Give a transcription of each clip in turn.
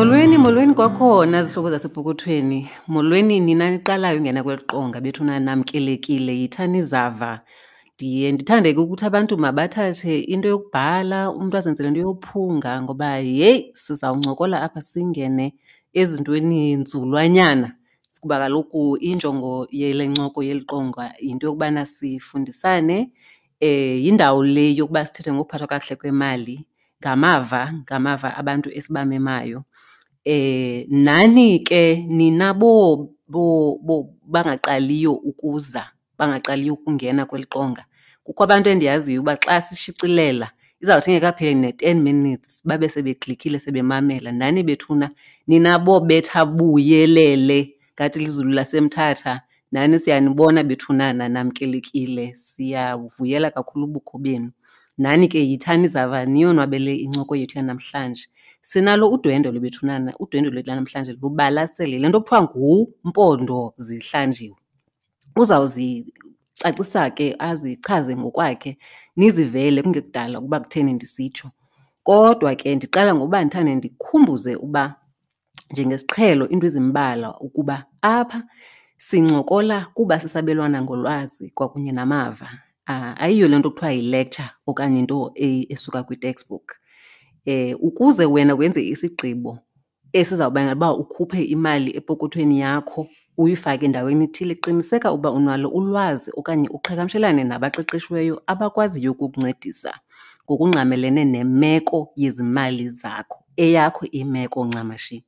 Molweni, molweni kwakhona zihlobo zasepokothweni. Molweni nina niqalayo ungena kweli qonga bethuna namkelekile, yithani zava. Ndiye ndithande ke ukuthi abantu mabathathe into yokubhala, umntu azenzele into yophunga ngoba yeyi sizawuncokola apha singene ezintweni nzulwanyana kuba kaloku injongo yele ncoko yeli qonga yinto yokubana sifundisane. Yindawo le yokuba sithethe ngokuphathwa kakuhle kwemali ngamava, ngamava abantu esibamemayo. Nani ke nina bangaqaliyo ukuza, bangaqaliyo ukungena kweli qonga, kukho abantu endiyaziyo uba xa sishicilela izawuthi ingekapheli ne-10 minutes babe sebeklikhile sebemamela. Nani bethuna nina bobetha buyelele ngathi lizulu laseMthatha, nani siyanibona bethunana, namkelekile, siyavuyela kakhulu ubukho benu. Nani ke yithani zava niyonwabele incoko yethu yanamhlanje. Sinalo udwendwe lwebethunana, udwendwe lwethu lanamhlanje lubalasele. Le nto kuthiwa nguMpondo zihlanjiwe. Uzawuzicacisa ke azichaze ngokwakhe nizivele kungekudala ukuba kutheni ndisitsho. Kodwa ke ndiqala ngokuba ndithande ndikhumbuze uba njengesiqhelo iinto ezimbalwa ukuba apha sincokola kuba sisabelwana ngolwazi kwakunye namava. Ayiyo le nto kuthiwa yi-lecture okanye into esuka kwi-textbook. Ukuze wena wenze isigqibo esizawubangela uba ukhuphe imali epokothweni yakho uyifake endaweni ethile, qiniseka uba unalo ulwazi okanye uqhagamshelane nabaqeqeshiweyo abakwaziyo ukukuncedisa ngokungqamelene nemeko yezimali zakho, eyakho imeko ncamashi.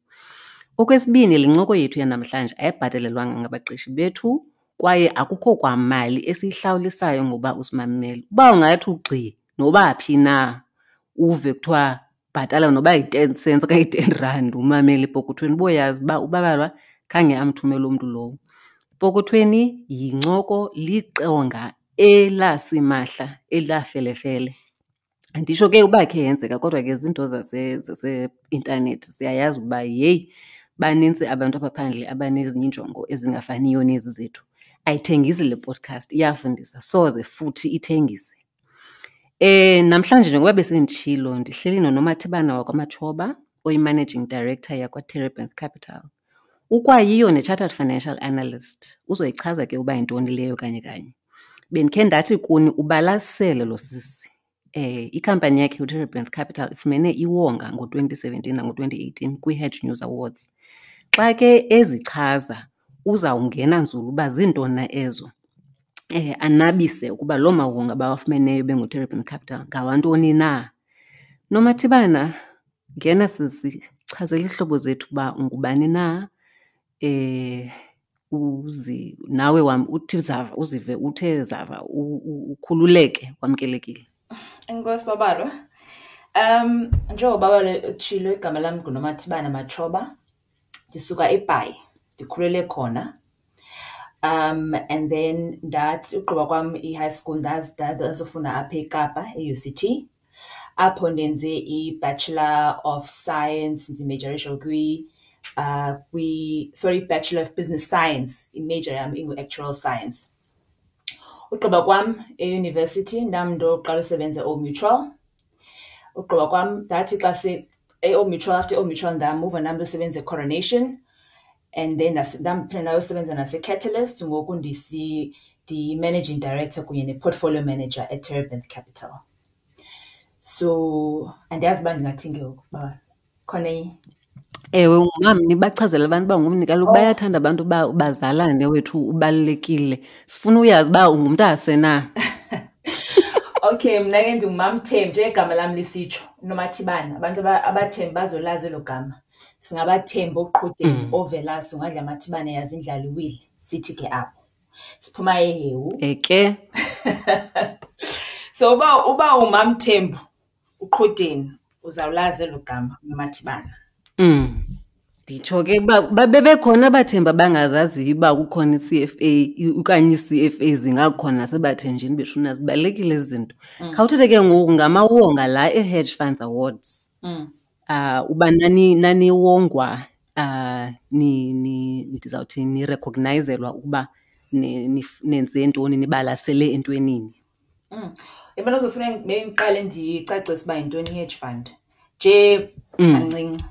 Okwesibini, le ncoko yethu yanamhlanje ayibhatelelwanga ngabaqeshi bethu kwaye akukho kwamali esiyihlawulisayo ngoba usimamele. Uba ungathi ugqi noba phi na uve kuthiwa bhatala noba yi-10 cents okanye yi-10 rand umamele epokothweni, uboyazi uba uBabalwa khange amthumele umntu lowo. Epokothweni yincoko, liqonga elasimahla elafelefele. Anditsho ke uba khe yenzeka kodwa ke zinto zaseintanethi siyayazi ukuba yeyi banintsi abantu apha phandle abanezinye iinjongo ezingafaniyo nezi zethu. Ayithengisi le podcast, iyafundisa, soze futhi ithengise. Namhlanje njengoba besenditshilo ndihleli noNomathibana wakwaMatshoba oyi-Managing Director yakwaTerebinth Capital. Ukwayiyo ne-Chartered Financial Analyst, uzoyichaza ke uba yintoni leyo kanye kanye. Bendikhe ndathi kuni ubalasele lo sisi. Ikhampani yakhe uTerebinth Capital ifumene iwonga ngo-2017 nango-2018 kwi-Hedge News Awards. Xa ke ezichaza uzawungena nzulu uba ziintoni na ezo, anabise ukuba loo mawonga bawafumeneyo benguTerebinth Capital ngawantoni na. Nomathibana, ngena sisi, chazela izihlobo zethu uba ungubani na, uzi nawe wam uthi zava, uzive uthe zava, ukhululeke, wamkelekile. Enkosi Babalwa. Njengoba Babalwa utshilo, igama lam nguNomathibana Matshoba. Ndisuka eBhayi, ndikhulele khona. And then ndathi ugqiba kwam i-high school ndazofunda apha eKapa e-UCT. Apho ndenze i-Bachelor of Science, ndimejorisha kwi, sorry, Bachelor of Business Science, i-major yam ingu-Actuarial Science. Ugqiba kwam eyunivesithi ndam ndoqala usebenza eOld Mutual. Ugqiba kwam ndathi xa se eOld Mutual, after eOld Mutual ndamuva nam ndosebenza eCoronation, and then ndaphinda ndayosebenza naseCatalyst. Ngoku ndiyi-Managing Director kunye ne-Portfolio Manager eTerebinth Capital. So andiyazi uba ndingathini ke ngoku uba khona enye. Ewe, ungumamni, bachazele abantu uba ungumni. Kaloku bayathanda abantu uba bazalane wethu, ubalulekile. Sifuna uyazi uba ungumntase na. Okay, mna ke ndinguMamThembu, njengegama lam lisitsho, uNomathibana. Abantu abaThembu bazolazi elo gama. Singabathembu oQhudeni, oVelasi, ungadla amathibane yazi indlala iwile. Sithi ke apho. Siphuma eHewu. Eke. So uba uMamThembu uQhudeni uzawulazi elo gama uNomathibana. Nditsho ke uba bebekhona abaThembu abangazaziyo uba kukhona i-C_F_A okanye ii-C_F_A zingakhona nasebaThenjini bethuna, zibalulekile ezi zinto. Khawuthethe ke ngoku ngamawonga la e-Hedge Funds Awards. Uba naniwongwa, ndizawuthi nirecognizelwa ukuba nenze ntoni, nibalasele entwenini. Yabona kuzofuna bendiqale ndicacise uba yintoni i-hedge fund nje kancinci.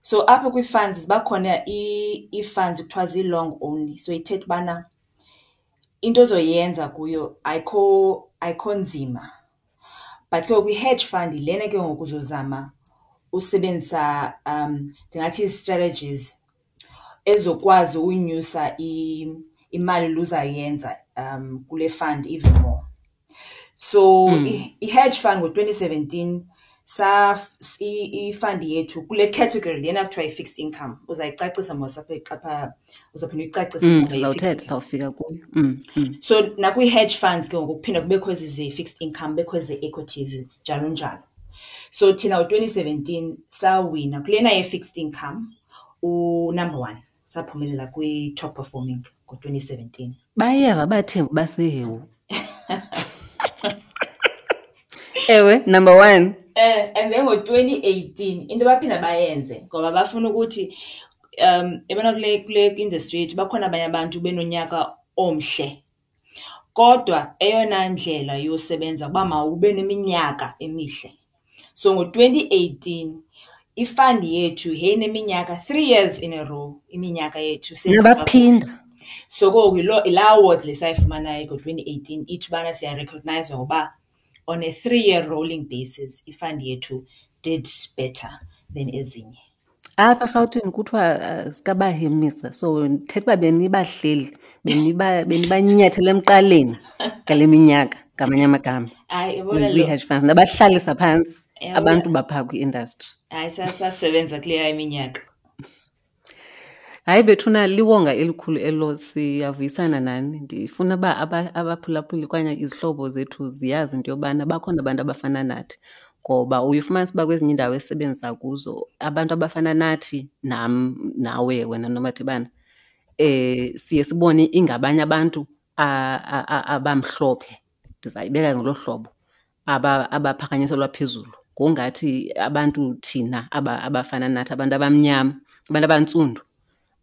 So apha kwii-funds ziba khona ii-funds kuthiwa zii-long only. So ithetha ubana into ozoyenza kuyo ayikho nzima. But ke ngoku i-hedge fund yilena ke ngoku uzozama usebenzisa ndingathi ii-strategies ezizokwazi unyusa imali le uzayenza kule fund even more. So i-hedge fund ngo-2017 i-fund yethu kule category lena kuthiwa yi-fixed income, uzayicacisa mos apha apha, uzawuphinda uyicacise. Sizawuthetha, sawufika kuyo. So nakwi-hedge funds ke ngoku kuphinda kubekho ezi ze-fixed income, kubekho eze-equities, njalo njalo. So thina ngo-2017 sawina kulena ye-fixed income u-number one, saphumelela kwi-top performing ngo-2017. Bayeva abaThembu baseHewu. Ewe, number one. And then ngo-2018 into abaphinda bayenze ngoba bafuna ukuthi yabona kule industry yethu bakhona abanye abantu benonyaka omhle, kodwa eyona ndlela yosebenza kuba mawube neminyaka emihle. So ngo-2018 ifund yethu yayineminyaka 3 years in a row, iminyaka yethu Nabaphinda. So ke ngoku yilaa award le sayifumanayo ngo-2018 ithi ubana siyarecognize ngoba on a 3-year rolling basis ifund yethu did better than ezinye. Apha eRhawutini kuthiwa sikabahemisa, so ndithetha uba benibahleli, benibanyathela emqaleni ngale minyaka, ngamanye amagama. Hayi, yabona lo Kwi-hedge funds, nabahlalisa phantsi Yabona. abantu baphaa kwi-industry. Hayi, sasebenza kuleya iminyaka. Hayi bethuna, liwonga elikhulu elo, siyavuyisana nani. Ndifuna uba abaphulaphuli okanye izihlobo zethu ziyazi into yobana bakhona abantu abafana nathi, ngoba uye ufumanise uba kwezinye iindawo esisebenzisa kuzo abantu abafana nathi, nam nawe wena Nomathibana, siye sibone ingabanye abantu abamhlophe, ndizayibeka ngolo hlobo, abaphakanyiselwa phezulu, ngongathi abantu thina abafana nathi, abantu abamnyama, abantu abantsundu,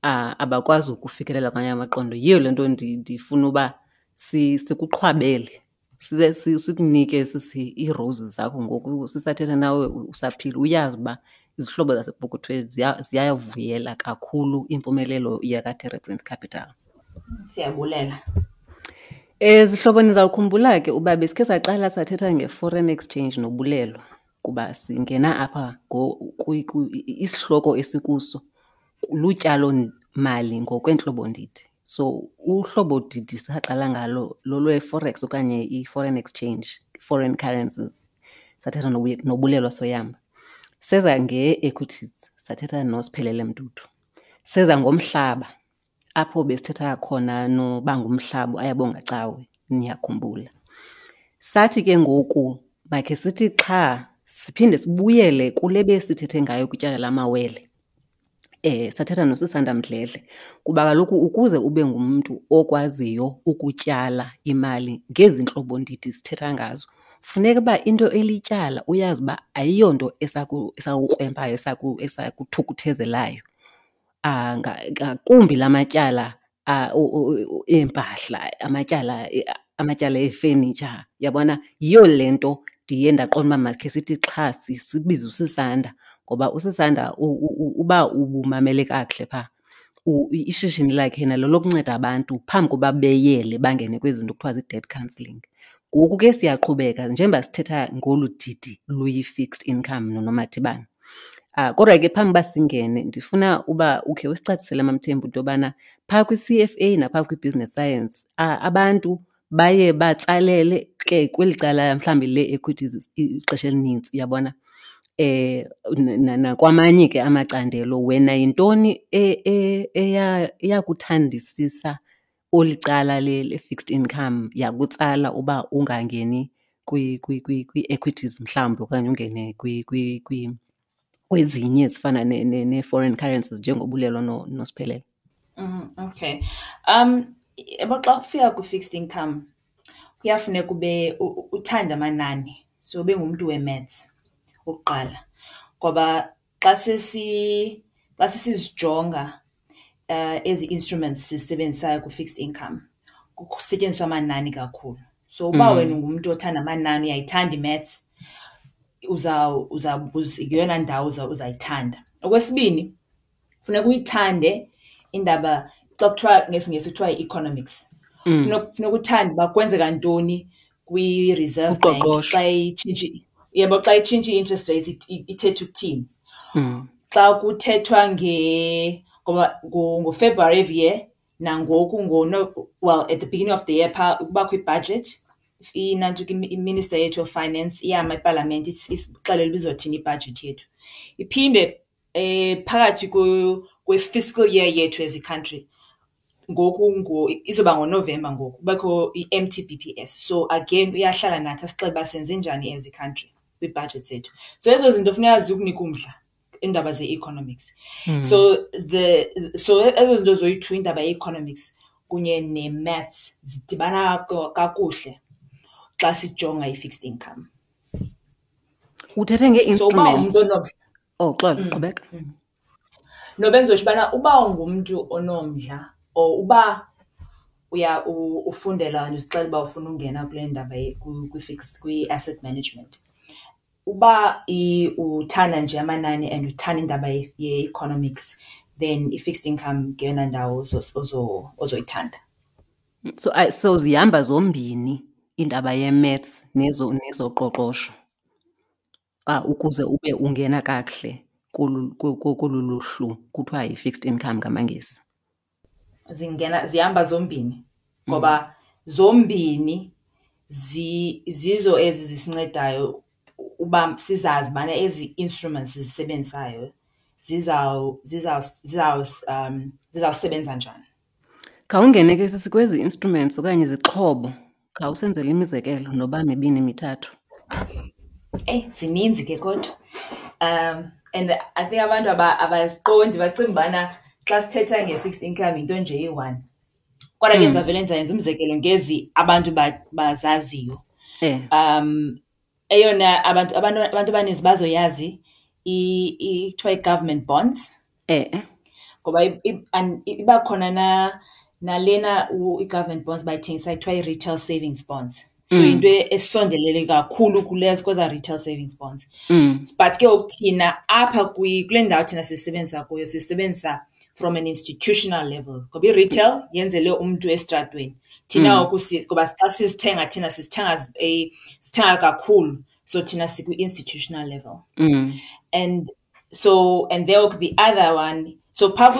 abakwazi ukufikelela kwamanye amaqondo. Yiyo le nto ndifuna uba sikuqhwabele, sikunike sisi ii-roses zakho ngoku sisathetha nawe usaphila, uyazi uba izihlobo zasepokothweni ziyavuyela kakhulu impumelelo yakaTerebinth Capital. Siyabulela. Zihlobo, nizawukhumbula ke uba besikhe saqala sathetha nge-foreign exchange nobulelo, kuba singena apha isihloko esikuso lutyalo-mali ngokweentlobo-ndidi. So uhlobo didi saqala ngalo lolwe-forex okanye i-foreign exchange, foreign currencies. Sathetha noBulelwa Soyamba. Seza nge-equities, sathetha noSiphelele Mdudu. Seza ngomhlaba, apho besithetha khona noBangumhlaba Ayabonga Cawe, niyakhumbula. Sathi ke ngoku makhe sithi xha siphinde sibuyele kule besithethe ngayo kwityala lamawele. Sathetha noSisanda Mdledle, kuba kaloku ukuze ube ngumntu okwaziyo ukutyala imali ngezi ntlobo ndidi sithetha ngazo, funeka uba into elityala uyazi uba ayiyonto esakukrwempayo, esakuthukuthezelayo. Ngakumbi la matyala, eempahla, amatyala efenitsha, uyabona? Yiyo le nto ndiye ndaqonda uba makhe sithi xha sibize uSisanda, ngoba uSisanda uba ubumamele kakuhle phaa, ishishini lakhe nalo lokunceda abantu phambi koba beyele bangene kwezi zinto kuthiwa zii-debt counselling. Ngoku ke siyaqhubeka njengoba sithetha ngolu didi luyi-fixed income noNomathibana. Kodwa ke phambi uba singene, ndifuna uba ukhe usicacisele MaMthembu into yobana phaa kwi-C_F_A naphaa kwi-business science, abantu baye batsalele ke kweli cala mhlawumbi lee-equities ixesha elinintsi, uyabona? Nakwamanye ke amacandelo, wena yintoni eyakuthandisisa olu cala le-fixed income, yakutsala uba ungangeni kwii-equities mhlawumbi okanye ungene kwezinye ezifana nee-foreign currencies njengoBulelwa noSiphelele? Okay. Yabo xa kufika kwi-fixed income kuyafuneka ube uthande amanani, so ube ngumntu we-maths okokuqala, ngoba xa sesizijonga ezi instruments sizisebenzisayo kwi-fixed income kusetyenziswa amanani kakhulu. So uba wena ungumntu othanda amanani, uyayithanda i-maths, yeyona ndawo uzayithanda. Okwesibini, Funeka uyithande indaba xa kuthiwa ngesiNgesi kuthiwa yi-economics. Funeka uthande uba kwenzeka ntoni kwi-Reserve Bank Uqoqosho. Xa itshintsha, uyabo, xa itshintsha i-interest rates ithetha ukuthini. Xa kuthethwa ngoba ngoFebruary every year nangoku ngono, well, at the beginning of the year phaa kubakho i-budget, inantsika i-minister yethu of finance iyama epalamente isixelele uba izothini i-budget yethu. Iphinde phakathi kwe-fiscal year yethu as i-country, ngoku izoba ngoNovemba ngoku, kubekho i-M_T_B_P_S. So again uyahlala nathi asixelele uba senze njani as i-country kwii-budget zethu. So ezo zinto funeka zikunike umdla, iindaba ze-economics. So ezo zinto zoyi-two, indaba ye-economics kunye ne-maths, zidibana kakuhle xa sijonga i-fixed income. Uthethe So uba ngee-instruments. ungumntu onomdla Oh, xolo, qhubeka. No, bendizotsho ubana uba ungumntu onomdla or uba uya ufundela and uzixelela uba ufuna ungena kule ndaba kwi-fixed, kwi-asset management, uba uthanda nje amanani and uthanda indaba ye-economics, then i-fixed income ngeyona ndawo ozoyithanda. So zihamba zombini indaba ye-maths nezoqoqosho, ukuze ube ungena kakuhle kolu luhlu kuthiwa yi-fixed income ngamaNgesi. Zihamba zombini ngoba zombini zizo ezi zisincedayo uba sizazi ubana ezi instruments sizisebenzisayo zizawusebenza njani. Khawungene ke sisi kwezi instruments okanye izixhobo, khawusenzele imizekelo noba mibini mithathu. Eyi, zininzi ke kodwa. And I think abantu abaziqondi, bacinga ubana xa sithetha nge-fixed income yinto nje eyi-one. Kodwa ke ndizawuvele ndizayenza umzekelo ngezi abantu bazaziyo. Eyona abantu abaninzi bazoyazi kuthiwa i-government bonds. Ngoba iba khona nalena i-government bonds bayithengisa kuthiwa i-retail savings bonds. So yinto esondelele kakhulu kweza retail savings bonds. But ke ngoku thina apha kule ndawo thina sisebenzisa kuyo, sisebenzisa from an institutional level. Ngoba i-retail yenzele umntu esitratweni. Thina ngoku ngoba xa sizithenga thina sithenga kakhulu. So thina sikwi-institutional level. And so, and there the other one, so phaa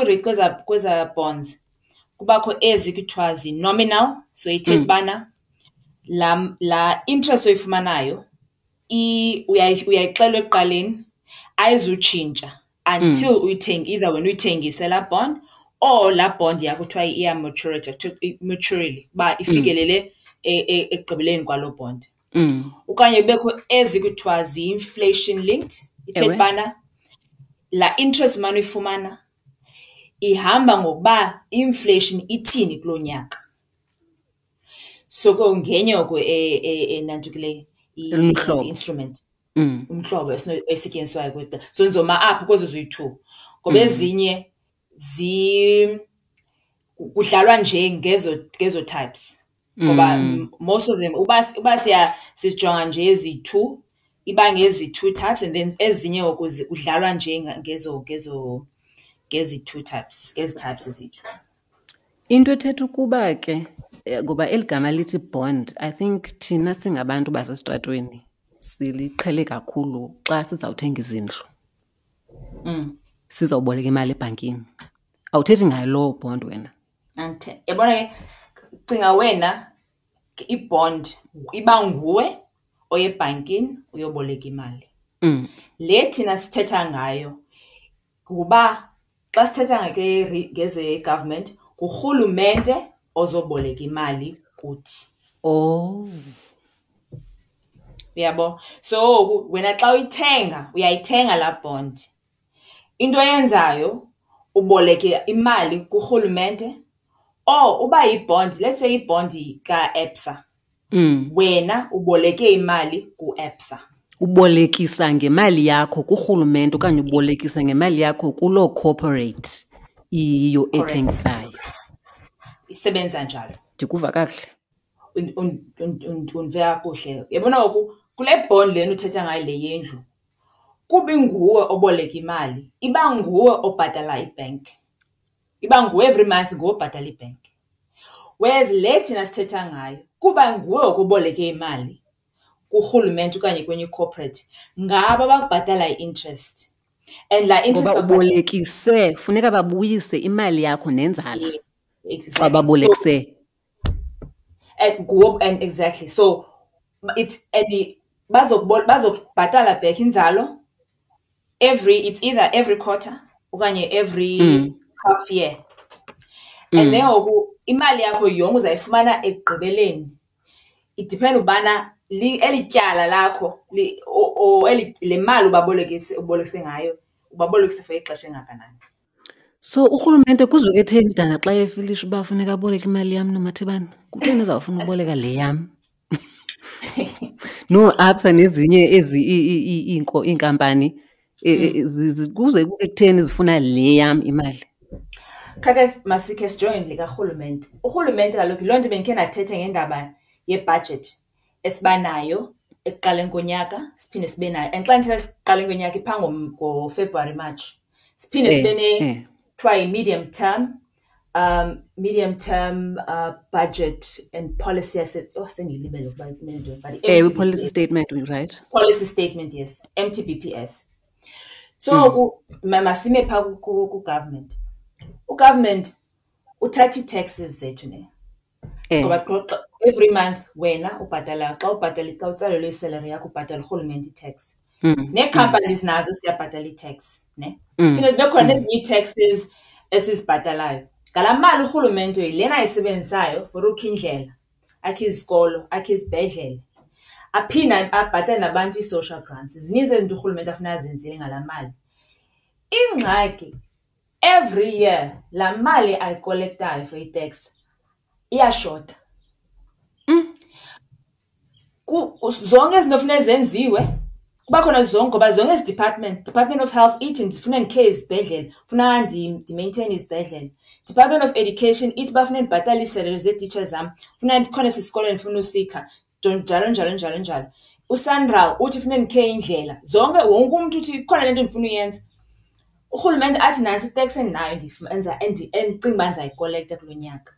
kweza bonds, kubakho ezi kuthiwa zi-nominal. So ithetha ubana la interest oyifumanayo, uyayixelwa ekuqaleni, ayizutshintsha until uyithenge, either wena uyithengise laa bond or laa bond yakho kuthiwa iya maturity, kuthiwa maturely, uba ifikelele ekugqibeleni kwaloo bond. Okanye kubekho ezi kuthiwa zi-inflation linked, ithetha ubana laa interest umane uyifumana ihamba ngokuba inflation ithini kuloo nyaka. So ke ngenye oko enantukileyo, Umhlobo. i-instrument. Umhlobo esetyenziswayo kwezi. So ndizoma apho kwezo ziyi-two. Ngoba ezinye kudlalwa nje ngezo types. Ngoba most of them, uba sijonga nje ezi-two, iba ngezi two types, and then ezinye ngoku kudlalwa nje ngezi two types, ngezi types zethu. Into ethetha ukuba ke, ngoba eli gama lithi bond, I think thina singabantu basesitratweni siliqhele kakhulu xa sizawuthenga izindlu. Sizawuboleka imali ebhankini. Awuthethi ngayo loo bond wena? Andithe-, yabona ke, cinga wena i-bond iba nguwe oye ebhankini uyoboleka imali. Le thina sithetha ngayo kuba xa sithetha ngeze-government, ngurhulumente ozoboleka imali kuthi. Uyabo? So wena xa uyithenga, uyayithenga laa bond. Into oyenzayo, uboleke imali kurhulumente, or uba yi-bond, let's say i-bond ka-ABSA. Wena uboleke imali ku-ABSA. Ubolekisa ngemali yakho kurhulumente okanye ubolekisa ngemali yakho kuloo corporate iyiyo ethengisayo. Isebenza njalo. Ndikuva kakuhle? Undive kakuhle. Uyabona ngoku kule bond lena uthetha ngayo le yendlu, Kuba inguwe oboleka imali, iba nguwe obhatala ibhenki. Iba nguwe every month nguwe obhatala ibhenki. Whereas le thina sithetha ngayo kuba nguwe oboleke imali kurhulumente okanye kwenye i-corporate, ngabo abakubhatala i-interest. And laa interest Ngoba ubolekise, funeka babuyise imali yakho nenzala. Exactly. Xa babolekise. So, and nguwe, and exactly. So it's and bazokubhatala back inzalo every, it's either every quarter okanye every half year. And then ngoku imali yakho yonke uzayifumana ekugqibeleni. It depends ubana eli tyala lakho, li, o, o, eli, le mali ubolekise ngayo, ubabolekise for ixesha engakanani. So urhulumente kuzoke etheni dana xa efilisha uba funeka aboleke imali yam noMathebana? Kutheni ezawufuna uboleka le yam? No, ABSA nezinye ezi iinkampani, kuze kube kutheni zifuna le yam imali? Khake masikhe sijonge likarhulumente. Urhulumente kaloku yiloo nto bendikhe ndathetha ngendaba yebhajethi esibanayo ekuqaleni konyaka, siphinde sibe nayo. And xa ndithetha ekuqaleni konyaka iphaa ngoFebruwari, March. Siphinde sibe ne kuthiwa yi-medium term, medium term budget and policy asset. Oh, sengiyilibele ukuba kumele ntoni, but Ewe, MTBPS. policy statement, right? Policy statement, yes. MTBPS. So, masime phaa ku-government. U-government uthatha ii-taxes zethu, ne? Ngoba every month wena ubhatala, xa ubhatala, xa utsalelwe isalary yakho, ubhatala urhulumente i-tax. Nee-companies nazo ziyabhatala i-tax, ne? Siphinde zibe khona nezinye ii-taxes esizibhatalayo. Ngalaa mali urhulumente yilena ayisebenzisayo for ukha indlela, akhe izikolo, akhe izibhedlele, aphinde abhatale nabantu ii-social grants. Zininzi ezi zinto urhulumente afuna azenzile ngalaa mali. Ingxaki, every year laa mali ayikolektayo for i-tax iyashota. Zonke izinto funeka zenziwe, kuba khona zonke, ngoba zonke ezi department, Department of Health ithi ndifuna ndikhe izibhedlele, funa ndimaintaine izibhedlele. Department of Education ithi bafuna ndibhatale iisalary zeetitsha zam, funa ndikhona esi sikolo ndifuna usikha, njalo, njalo, njalo, njalo. USANRAL uthi funa ndikhe indlela. Zonke, wonke umntu uthi ikhona le nto ndifuna uyenza. Urhulumente athi nantsi itax endinayo endicinga uba ndizayikolekta kulo nyaka.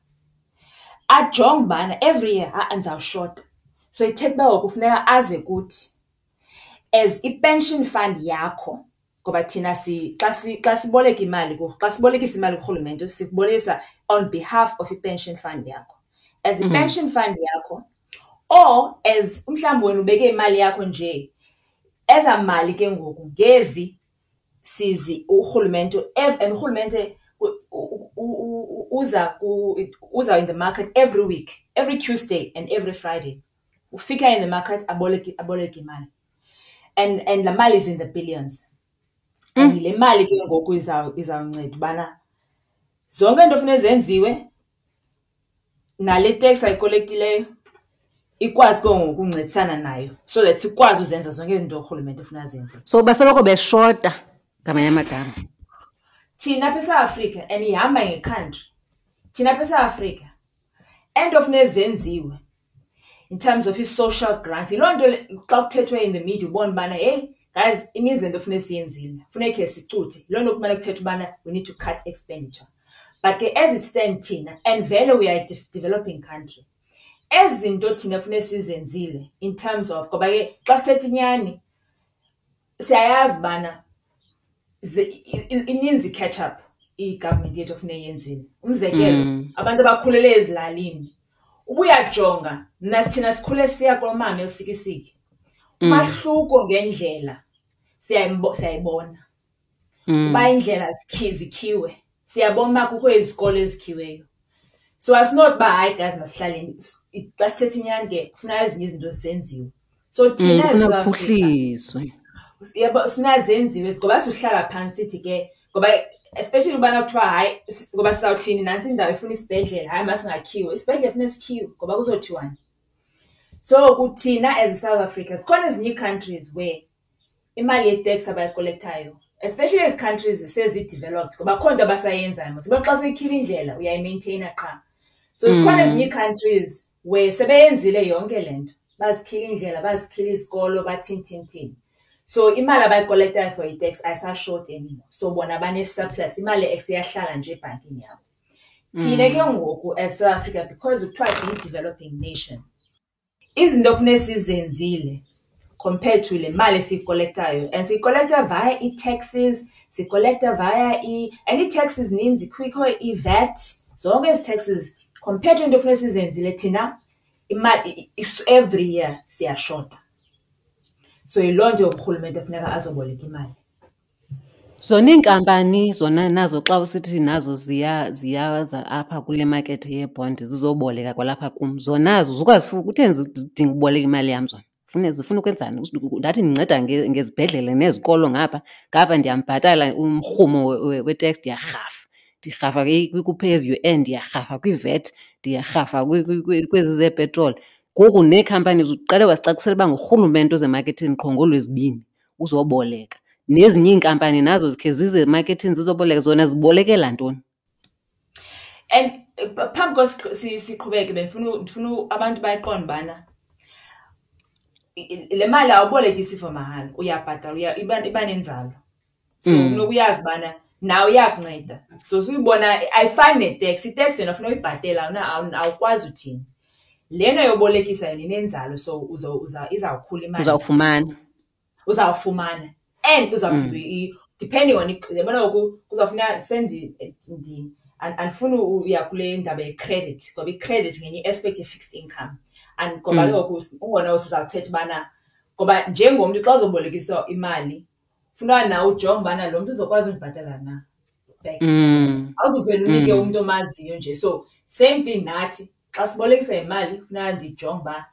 Ajonge ubana every year, ha-a, ndizawushota. So ithetha uba ngoku kufuneka aze kuthi as i-pension fund yakho, ngoba thina si, xa si, xa siboleka imali ku, xa sibolekisa imali kurhulumente, sikubolekisa on behalf of i-pension fund yakho. As i-pension fund yakho, or as mhlawumbi wena ubeke imali yakho nje, eza mali ke ngoku ngezi sizi urhulumente, and urhulumente uza ku, uza in the market every week, every Tuesday and every Friday. Ufika in the market, aboleke imali. And la mali is in the billions. And le mali ke ngoku izawunceda ubana zonke into ofuneka zenziwe nale tax ayikolektileyo ikwazi ke ngoku ukuncedisana nayo so that sikwazi uzenza zonke izinto urhulumente ofuna azenze. So basoloko beshota ngamanye amagama. Thina apha eSouth Africa, and ihamba nge-country, thina apha eSouth Africa, into ofuneka zenziwe in terms of i-social grants, yiloo nto le, xa kuthethwe in the media ubona ubana, hey, guys, ininzi into ofuneka siyenzile, funeka khe sicuthe. Yiloo nto kumele kuthethwe ubana we need to cut expenditure. But ke as it stands thina, and vele we are a developing country, ezi zinto thina funeka sizenzile in terms of, ngoba ke xa sithetha inyani, siyayazi ubana ininzi i-catch up i-government yethu ofuneka iyenzile. Umzekelo, abantu abakhulele ezilalini, ubuyajonga, mna thina sikhule siya kulomama eLusikisiki. Umahluko ngendlela siyayibona. Uba indlela zikhiwe, siyabona uba kukho izikolo ezikhiweyo. So asinothi uba hayi guys masihlaleni, xa sithetha inyani ke kufuneka ezinye izinto zenziwe. So thina Kufuneka as South Africa, kuphuhliswe. Yabo, sifuna zenziwe, ngoba sihlala phantsi sithi ke, ngoba especially ubana kuthiwa hayi, ngoba sizawuthini nantsi indawo ifuna isibhedlele, hayi masingakhiwe, isibhedlele funeka sikhiwe ngoba kuzothiwani. So kuthina as South Africa, zikhona ezinye ii-countries where imali ye-tax abayikolektayo, especially ezi countries sezi-developed, ngoba akho nto abasayenzayo mos. Uba xa soyikhila indlela uyayimaintaina qha. So zikhona ezinye ii-countries where sebeyenzile yonke le nto, bazikhila indlela, bazikhila izikolo, bathini, thini, thini. So imali abayikolektayo for i-tax ayisashoti anymore. So bona bane-surplus, imali iyahlala nje ebhankini yabo. Thina ke ngoku as South Africa, because kuthiwa siyi-developing nation, izinto ekufuneka sizenzile compared to le mali esiyikolektayo, and siyikolekta via ii-taxes, sikolekta via and ii-taxes zininzi, kukho i-VAT, zonke ezi taxes compared to into ekufuneka sizenzile thina imali every year siyashota. So yiloo nto urhulumente funeka azoboleka imali. Zona iinkampani zona nazo xa usithi nazo ziyaza apha kule makethe yeebhondi zizoboleka kwalapha kum, zona zuka kutheni zidinga uboleka imali yam zona? Fune zifuna ukwenzani? Ndathi ndinceda ngezibhedlele nezikolo ngapha, ngapha ndiyambhatala umrhumo we-tax, ndiyarhafa. Ndirhafa ku-pay as you earn, ndiyarhafa kwi-VAT, ndiyarhafa kwezi zeepetroli. Ngoku nee-companies uqale wasicacisela uba ngurhulumente ozemaketheni qho ngoolwezibini uzoboleka. Nezinye iinkampani nazo zikhe zize emaketheni zizoboleka, zona zibolekela ntoni? And phambi siqhubeke, bendifuna ndifuna abantu bayiqonde ubana le mali awubolekisi for mahala, uyabhatala, iba nenzalo. So funeka uyazi ubana nawe iyakunceda. So suyibona ayifani ne-tax, i-tax yona funeka uyibhatele, awukwazi uthini. Lena yobolekisa yona inenzalo, so izawukhula imali. Uzawufumana. Uzawufumana. And uzawuphinda depending on, yabona ngoku kuzawufuneka senze, andifuni uya kule ndaba ye-credit, ngoba i-credit ngenye i-aspect ye-fixed income. And ngoba ke ngoku ungona sizawuthetha ubana, ngoba njengomntu xa uzobolekiswa imali, funeka nawe ujonge ubana lo mntu uzokwazi undibhatala na back. Awuzuvele unike umntu omaziyo nje. So same thing nathi, xa sibolekisa imali, funeka ndijonge uba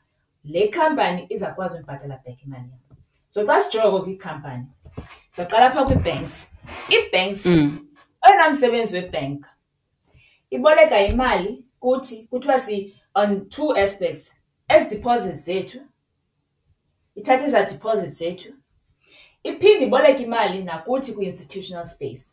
le company izawukwazi undibhatala back imali yam. So xa sijonga kwikhampani, sizawuqala apha kwii-banks. Ii-banks, oyena msebenzi webhenki iboleka imali kuthi, kuthiwa si on two aspects. Ezi deposits zethu, ithatha ezaa deposits zethu, iphinde iboleke imali nakuthi kwi-institutional space.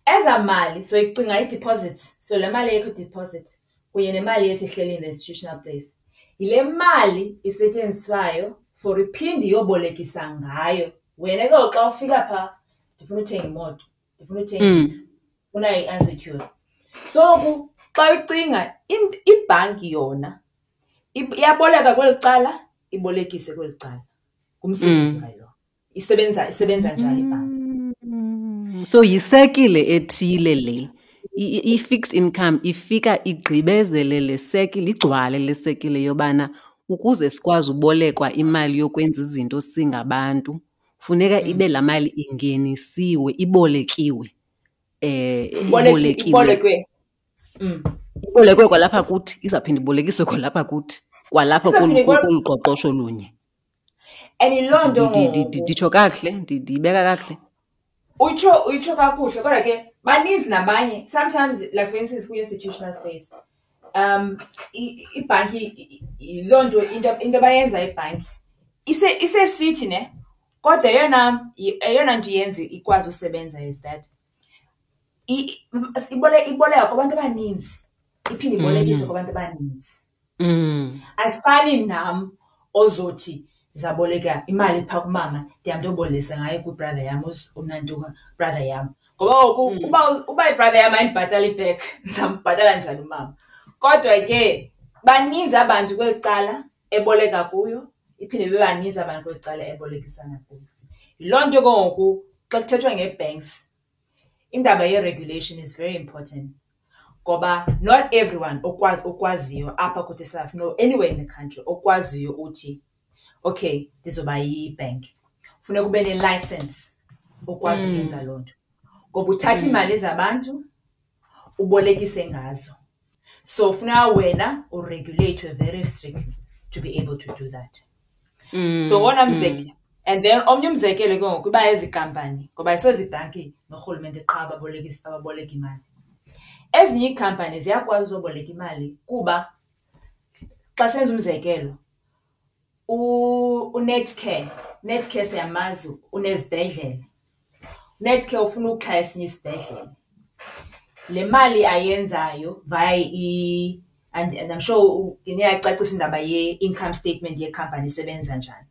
Ezaa mali, so icinga ii-deposits, so le mali yethu deposit kunye nemali yethu ehleli in the institutional place, yile mali isetyenziswayo for iphinde iyobolekisa ngayo. Wena ke ngoku xa ufika phaa, ndifuna uthenga imoto, ndifuna uthenga indlu, ndifuna i-unsecured. So ngoku xa ucinga ibhanki yona iyaboleka kweli cala, ibolekise kweli cala. Ngumsebenzi wayo lowo. Isebenza njalo ibhanki. So yisekile ethile le. I-fixed income ifika igqibezele le sekile, igcwale le sekile yobana ukuze sikwazi ubolekwa imali yokwenza izinto singabantu, funeka ibe laa mali ingenisiwe, ibolekiwe. Ibolekiwe. Ibolekwe. Ibolekwe kwalapha kuthi, izawuphinda ibolekiswe kwalapha kuthi, kwalapha Izawuphinda kolu qoqosho lunye. And yiloo nto ngoku. Nditsho kakuhle, ndiyibeka kakuhle. Utsho kakuhle, kodwa ke baninzi nabanye. Sometimes, like for instance, kwi-institutional space, ibhanki, yiloo nto, into abayenza ibhanki isesithi ne, kodwa eyona nto iyenza ikwazi usebenza is that iboleka kubantu abaninzi, iphinde ibolekise kubantu abaninzi. Ayifani nam ozothi ndizaboleka imali phaa kumama, ndihambe ndiyobolekisa ngayo kwi-brother yam, unantuka brother yam. Ngoba ngoku uba i-brother yam ayindibhatali back, ndizambhatala njani umama? Kodwa ke baninzi abantu kweli cala eboleka kuyo, iphinde ibe baninzi abantu kweli cala ebolekisana kuyo. Yiloo nto ke ngoku xa kuthethwa ngee-banks, indaba ye-regulation is very important. Ngoba not everyone okwaziyo apha kuthi eSouth Africa, no, anywhere in the country, okwaziyo uthi, okay, ndizoba yi-bank. Funeka ube ne-license okwazi ukwenza loo nto. Ngoba uthatha iimali zabantu, ubolekise ngazo. So funeka wena uregulate very strictly to be able to do that. So wona mzekelo, and then omnye umzekelo ke ngoku iba ezi kampani, ngoba ayisozibhanki norhulumente qha ababoleka imali. Ezinye iikhampani ziyakwazi uzoboleka imali kuba xa senza umzekelo, uNetcare, Netcare siyamazi unezibhedlele. Netcare ufuna ukuxhasa esinye isibhedlele. Le mali ayenzayo via i, and I'm sure niyacacisa indaba ye-income statement yekhampani isebenza njani.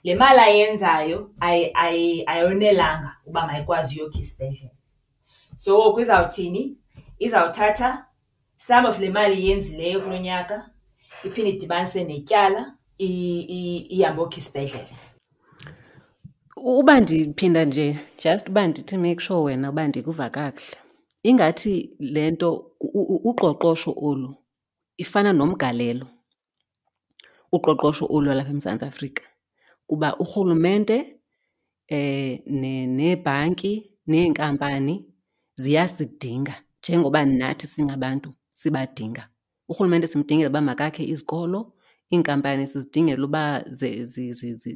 Le mali ayenzayo ayonelanga uba mayikwazi uyokha isibhedlele. So ngoku izawuthini? Izawuthatha some of le mali iyenzileyo kulo nyaka iphinde idibanise netyala ihambe yokha isibhedlele. Uba ndiphinda nje just uba ndithi make sure wena uba ndikuva kakuhle, ingathi le nto uqoqosho olu ifana nomgalelo, uqoqosho olu lwalapha eMzantsi Afrika. Kuba urhulumente neebhanki neenkampani ziyasidinga njengoba nathi singabantu sibadinga. Urhulumente simdingela uba makakhe izikolo, iinkampani sizidingela uba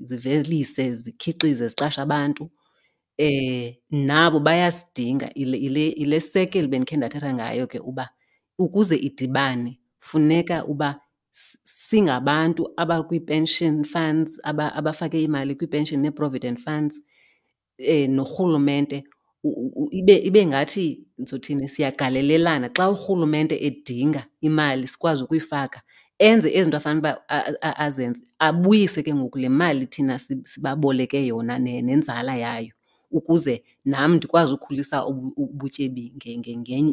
zivelise, zikhiqize, ziqashe abantu. Nabo bayasidinga. Yile sekeli bendikhe ndathetha ngayo ke uba ukuze idibane funeka uba singabantu abakwii-pension funds, abafake imali kwii-pension nee-provident funds norhulumente ibe ngathi ndizothini, siyagalelelana. Xa urhulumente edinga imali sikwazi ukuyifaka, enze ezi zinto afanele uba azenze, abuyise ke ngoku le mali thina sibaboleke yona nenzala yayo ukuze nam ndikwazi ukhulisa ubutyebi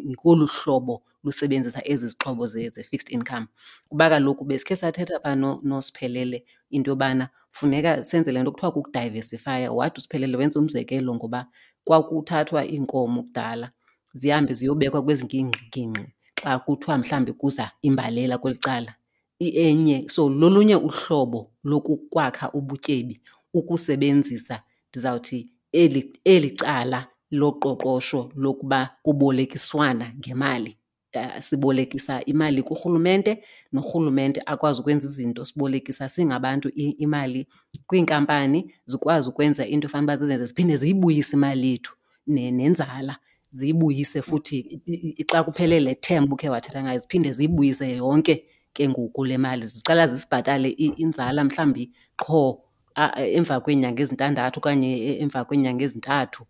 ngolu hlobo lusebenzisa ezi zixhobo ze-fixed income. Kuba kaloku besikhe sathetha phaa noSiphelele into yobana funeka senze le nto kuthiwa kukudayivesifaya. Wathi uSiphelele wenza umzekelo ngoba kwakuthathwa iinkomo kudala zihambe ziyobekwa kwezi ngingqi xa kuthiwa mhlawumbi kuza imbalela kweli cala. Enye, so lolunye uhlobo lokukwakha ubutyebi ukusebenzisa ndizawuthi eli cala loqoqosho lokuba kubolekiswana ngemali. Sibolekisa imali kurhulumente norhulumente akwazi ukwenza izinto. Sibolekisa singabantu imali kwiinkampani zikwazi ukwenza into efanele uba zizenze, ziphinde ziyibuyise imali yethu nenzala, ziyibuyise futhi xa kuphele le term ubukhe wathetha ngayo, ziphinde ziyibuyise yonke ke ngoku le mali. Ziqala zisibhatale inzala mhlawumbi qho emva kweenyanga ezintandathu okanye emva kweenyanga ezintathu,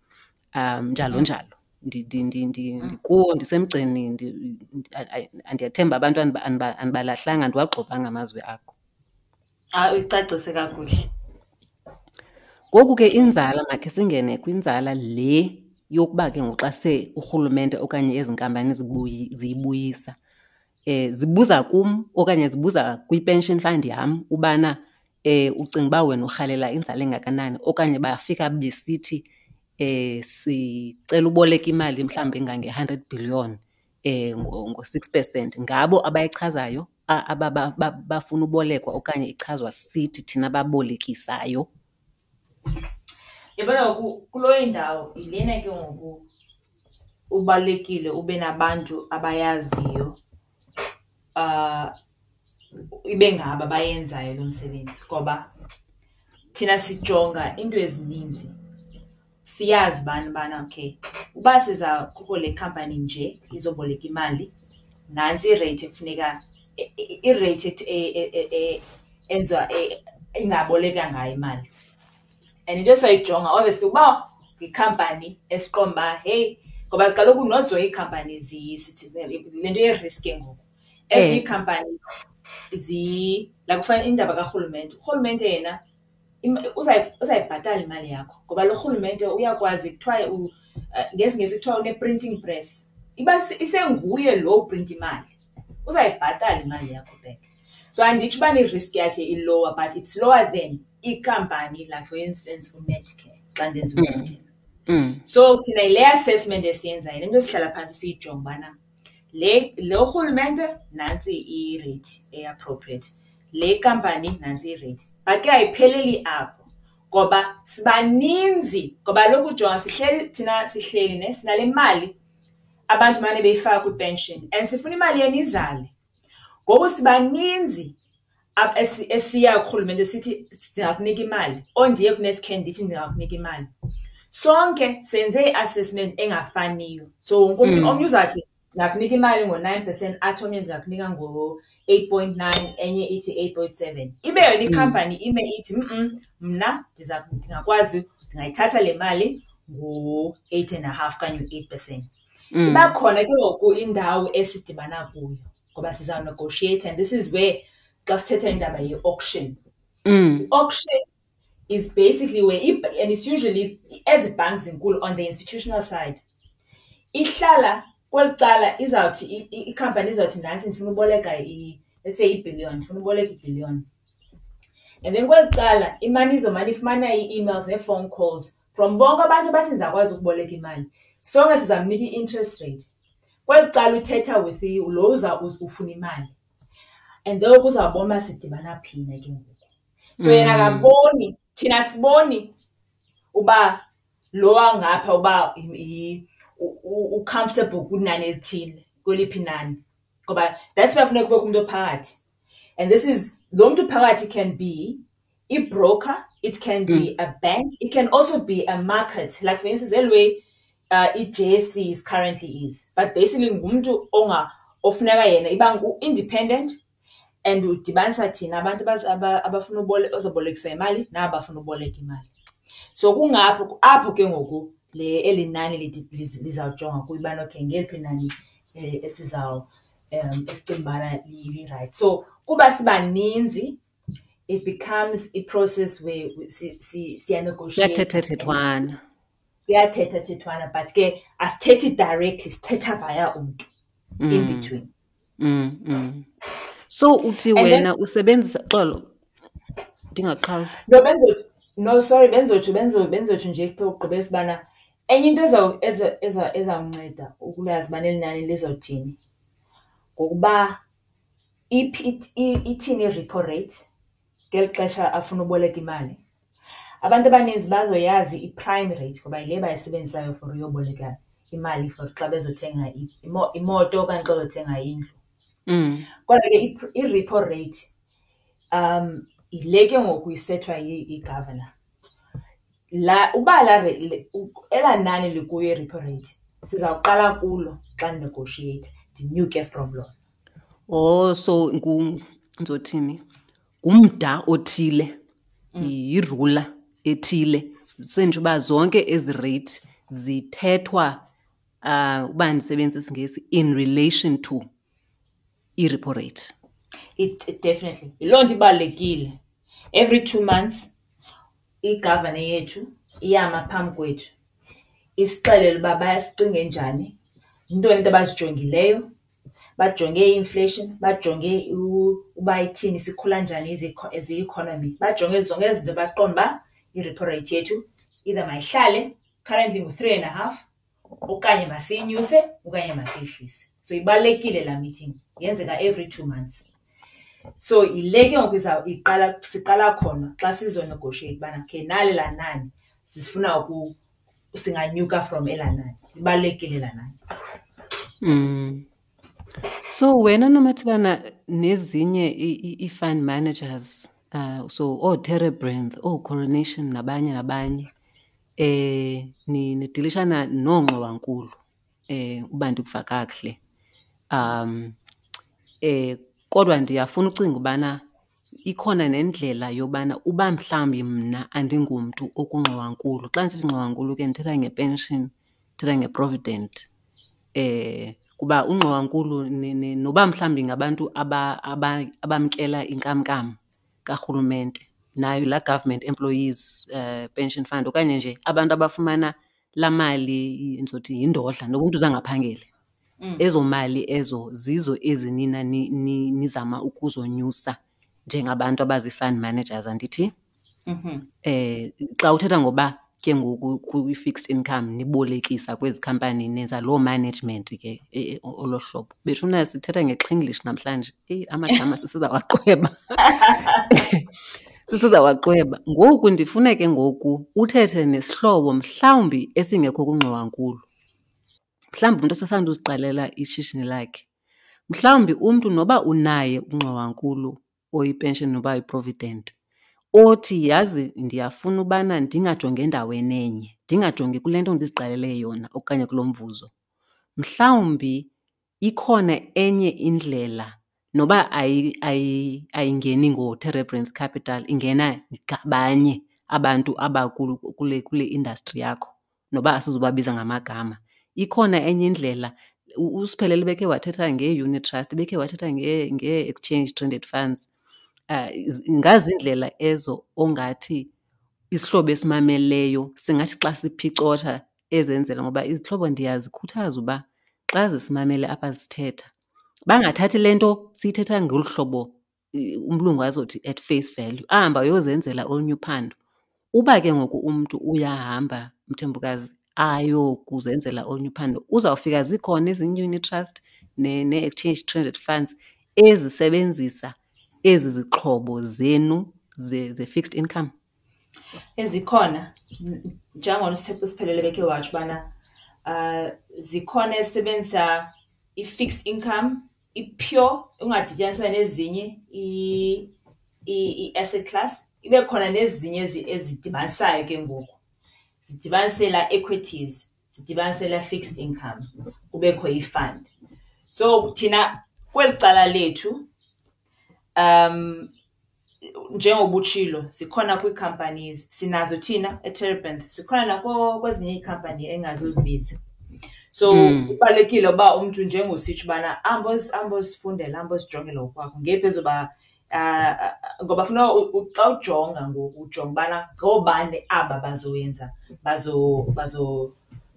njalo njalo. Ndikuwo, ndisemgceni, ndiyathemba abantu andibalahlanga, andiwagxobanga amazwi akho. Hayi, uyicacise kakuhle. Ngoku ke inzala, makhe singene kwinzala le yokuba ke ngoku xa se urhulumente okanye ezi nkampani ziyibuyisa, zibuza kum okanye zibuza kwi-pension fund yam ubana ucinga uba wena urhalela inzala engakanani, okanye bafika besithi sicela uboleka imali mhlawumbi engange-hundred billion ngo-6%. Ngabo abayichazayo bafuna ubolekwa okanye ichazwa sithi thina babolekisayo? Yabona ngoku kuloo indawo yilena ke ngoku ubalulekile ube nabantu abayaziyo, ibe ngabo abayenzayo lo msebenzi, ngoba thina sijonga iinto ezininzi. Siyazi bani ubana okay, uba siza kukho le khampani nje izoboleka imali, nantsi ireythi ekufuneka, ireythi enziwa ingaboleka ngayo imali. And into esayijonga obviously uba yikhampani esiqonda uba heyi, ngoba kaloku not zonke iikhampani sithi le nto ye-risk ke ngoku. Ezinye iikhampani like kufana indaba karhulumente, urhulumente yena uzayibhatala imali yakho ngoba lo rhulumente uyakwazi, kuthiwa ngesiNgesi kuthiwa une-printing press. Iba isenguye lo uprinta imali, uzayibhatala imali yakho back. So anditsho ubana i-risk yakhe i-lower, but it's lower than ikhampani like for instance uNetcare xa ndenza umzekelo. So thina yile assessment esiyenzayo, le nto sihlala phantsi siyijonge ubana lo rhulumente nantsi i-rate e-appropriate, le kampani nantsi i-rate. But ke ayipheleli apho ngoba sibaninzi, ngoba kaloku jonga sihleli thina sihleli ne sinale mali abantu mane beyifaka kwi-pension and sifuna imali yenu izale. Ngoku sibaninzi esiya kurhulumente sithi ndingakunika imali, or ndiye kuNetcare ndithi ndingakunika imali. Sonke senze i-assessment engafaniyo. So wonke umntu, omnye uzawuthi ndingakunika imali ngo-9%, athi omnye ndingakunika ngo-8.9, enye ithi 8.7. Ibe yona ikhampani ime ithi mna ndingakwazi, ndingayithatha le mali ngo-eight and a half okanye u-8%. Iba khona ke ngoku indawo esidibana kuyo ngoba sizawunegoshiyeyitha, and this is where xa sithetha indaba ye-auction. I-auction is basically where, and it's usually ezi banks zinkulu on the institutional side, ihlala kweli cala izawuthi ikhampani izawuthi nantsi ndifuna uboleka let's say ibhiliyoni, ndifuna uboleka ibhiliyoni. And then kweli cala imane izomane ifumana ii-emails nee-phone calls from bonke abantu abathi ndizawukwazi ukuboleka imali. Sonke sizamnika i-interest rate. Kweli cala uthetha with lo uza ufuna imali. And then kuzawubona uba sidibana phi na ke ngoku. So yena akaboni, thina siboni uba lo wangapha uba u-comfortable kwinani elithile, kweliphi inani. Ngoba that's why funeka kubekho umntu ophakathi. And this is, lo mntu phakathi can be i-broker, it can be a bank, it can also be a market. Like for instance, eli way i-JSE is currently is. But basically ngumntu ofuneka yena iba ngu-independent and udibanisa thina abantu abafuna ozobolekisa imali naba bafuna uboleka imali. So kungapho apho ke ngoku le eli nani lizawujonga kuyo ubana okay ngeliphi inani esicinga ubana li-right. So kuba sibaninzi it becomes a process where siya-negotiate. Kuyathethathethwana. Kuyathethathethwana, but ke asithethi directly, sithetha via umntu in between. So uthi wena usebenzisa, xolo, ndingaqhawuli. No, benzothi, no, sorry, benzotsho, benzo, benzotsho nje ukugqibela ubana enye into ezawunceda ukulazi ubana eli nani lizawuthini ngokuba ithini i-repo rate ngeli xesha afuna uboleka imali. Abantu abaninzi bazoyazi i-prime rate ngoba yile bayisebenzisayo for uyoboleka imali for xa bezothenga imoto okanye xa bezothenga indlu. Kodwa ke i-repo rate yile ke ngoku isethwa yi-governor. La, uba la re-, le, u-, elaa nani likuyo i-repo rate, sizawuqala kulo xa negotiate, ndinyuke from lona. Oh, so ndizothini? Ngumda othile, yirula ethile. Senje uba zonke ezi rate zithethwa, uba ndisebenzisa isiNgesi, in relation to i-repo rate. It definitely. Yiloo nto ibalulekile. Every 2 months, i-governor yethu iyama phambi kwethu. Isixelele uba bayasicinge njani, yintoni into abazijongileyo, bajonge i-inflation, bajonge uba ithini, sikhula njani as i-economy, bajonge zonke ezi zinto baqonde uba i-repo rate yethu either mayihlale currently ngu-three and a half okanye masiyinyuse okanye masiyihlise. So ibalulekile laa meeting, yenzeka every 2 months. So yile ke ngoku siqala khona xa sizonegotiate ubana okay nali laa nani sifuna singanyuka from elaa nani. Ibalulekile laa nani. So wena Nomathibana nezinye i-fund managers, so ooTerebrinth, ooCoronation nabanye nabanye, nidilishana noongxowankulu, uba ndikuva kakuhle. Kodwa ndiyafuna ucinga ubana ikhona nendlela yobana uba mhlawumbi mna andingumntu okungxowankulu. Xa ndisithi ngxowankulu ke ndithetha ngepension, ndithetha ngeprovident. Kuba ungxowankulu noba mhlawumbi ngabantu abamkela inkamnkam karhulumente, nayo laa government employees pension fund, okanye nje abantu abafumana laa mali, ndizothi yindodla, noba umntu zange aphangele. Ezo mali ezo zizo ezi nina nizama ukuzonyusa njengabantu abazi-fund managers, andithi? Xa uthetha ngoba ke ngoku kwi-fixed income nibolekisa kwezi company nenza loo management ke, olo hlobo. Bethuna sithetha ngeXinglish namhlanje. Eyi, amagama sisizawaqweba. Sisizawaqweba. Ngoku ndifuna ke ngoku uthethe nesihlobo mhlawumbi esingekho kungxowankulu. Mhlawumbi umntu osasanda uziqalela ishishini lakhe. Mhlawumbi umntu noba unaye ungxowankulu oyipension noba uyiprovident, othi yazi ndiyafuna ubana ndingajongi endaweni enye, ndingajongi kule nto ndiziqalele yona okanye kulo mvuzo. Mhlawumbi ikhona enye indlela noba ayingeni ngoTerebrinth Capital, ingena ngabanye abantu kule industry yakho, noba asizubabiza ngamagama. Ikhona enye indlela. uSiphelele bekhe wathetha ngee-unit trust, bekhe wathetha ngee-exchange traded funds. Ngazindlela ezo ongathi Isihlobo esimameleyo singathi xa siphicotha ezenzela, ngoba izihlobo ndiyazikhuthaza uba xa zisimamele apha sithetha bangathathi le nto siyithetha ngolu hlobo umlungu azothi at face value, ahambe ayozenzela olunye uphando. Uba ke ngoku umntu uyahamba, Mthembukazi, ayokuzenzela olunye uphando, uzawufika zikhona ezinye ii-unit trust nee-exchange traded funds ezisebenzisa ezi zixhobo zenu ze-fixed income. Ezikhona, njengona uSiphelele bekhe watsho ubana zikhona ezisebenzisa i-fixed income, i-pure, ungadityaniswa nezinye ii-asset class. Ibe khona nezinye ezidibanisayo ke ngoku, zidibanise laa equities, zidibanise laa fixed income, kubekho i-fund. So thina kweli cala lethu njengoba utshilo zikhona kwii-companies, sinazo thina eTerebinth, zikhona kwezinye iikhampani engazuzibiza. So kubalulekile uba umntu njengositsho ubana ahambe ahambe ozifundela, ahambe ozijongela ngokwakhe ngeyiphi ezoba ngoba funeka xa ujonga ngoku ujonga ubana ngoobani aba bazoyenza,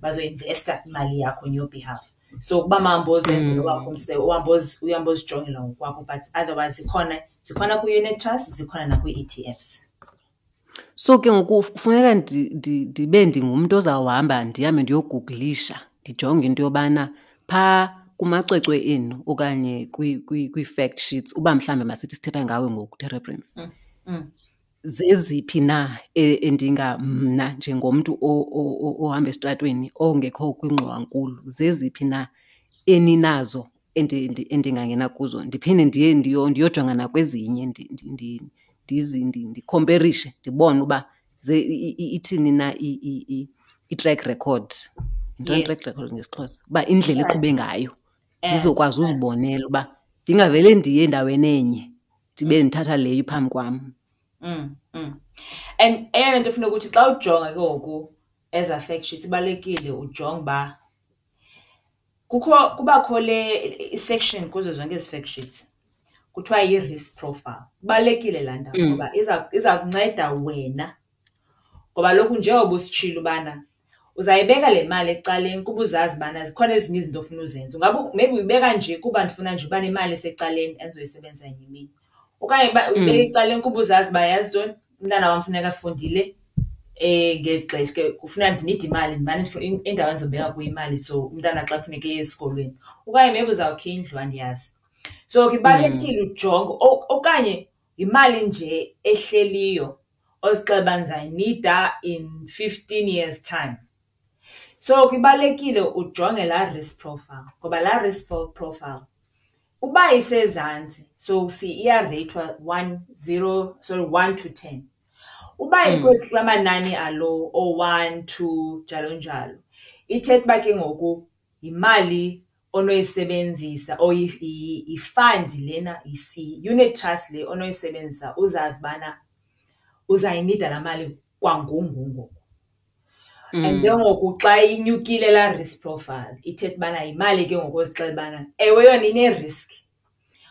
bazoinvesta imali yakho on your behalf. So ukuba mawuhambe ozenzela owakho uhambe uhambe ozijongela ngokwakho, but otherwise zikhona, zikhona kwii-unit trust, zikhona nakwii-E T Fs. So ke ngoku kufuneka ndibe ndingumntu ozawuhamba ndihambe ndiyogugulisha, ndijonge into yobana phaa kumacwecwe enu okanye kwii-fact sheets, uba mhlawumbi masithi sithetha ngawe ngoku, Terebrinth. Zeziphi na endinga mna njengomntu ohamba esitratweni ongekho kwingxowankulu, zeziphi na eninazo endingangena kuzo, ndiphinde ndiye ndiyojonga nakwezinye, ndikhomperishe ndibone uba ithini na i-track record. Yintoni i-track record ngesiXhosa? Uba indlela eqhube ngayo, ndizokwazi uzibonela uba ndingavele ndiye endaweni enye ndibe ndithatha leyo iphambi kwam. And eyona nto funeka ukuthi xa ujonga ke ngoku eza fact sheets, ibalulekile ujonge uba kubakho le i-section kuzo zonke ezi fact sheets kuthiwa yi-risk profile. Ibalulekile laa ndawo ngoba iza kunceda wena, ngoba kaloku njengoba usitshilo ubana uzayibeka le mali ecaleni kuba uzazi ubana zikhona ezinye izinto ofuna uzenza. Ungaba maybe uyibeka nje kuba ndifuna nje uba nemali esecaleni endizoyisebenzisa ngenye imini, okanye uba uyibeka ecaleni kuba uzazi uba yazi ntoni, umntana wam funeka efundile ngeli xesha ke kufuneka ndinide imali, ndimane indawo endizobeka kuyo imali so umntana xa kufuneka eye esikolweni. Okanye maybe uzawukha indlu, andiyazi. So ke ibalulekile ujonge, okanye yimali nje ehleliyo ozixelela uba ndizayinida in 15 years time. So ke ibalulekile ujonge laa risk profile, ngoba laa risk profile uba isezantsi, so iyareyithwa one, zero, sorry, 1 to 10. Uba ikwezi kula manani alo, oo-1, 2, njalo njalo, ithetha uba ke ngoku yimali onoyisebenzisa or yi-fund lena, yi-unit trust le onoyisebenzisa uzazi ubana uzayinida laa mali kwangoku ngoku. And ke ngoku xa inyukile laa risk profile, ithetha ubana yimali ke ngoku ozixelela ubana ewe yona ine-risk,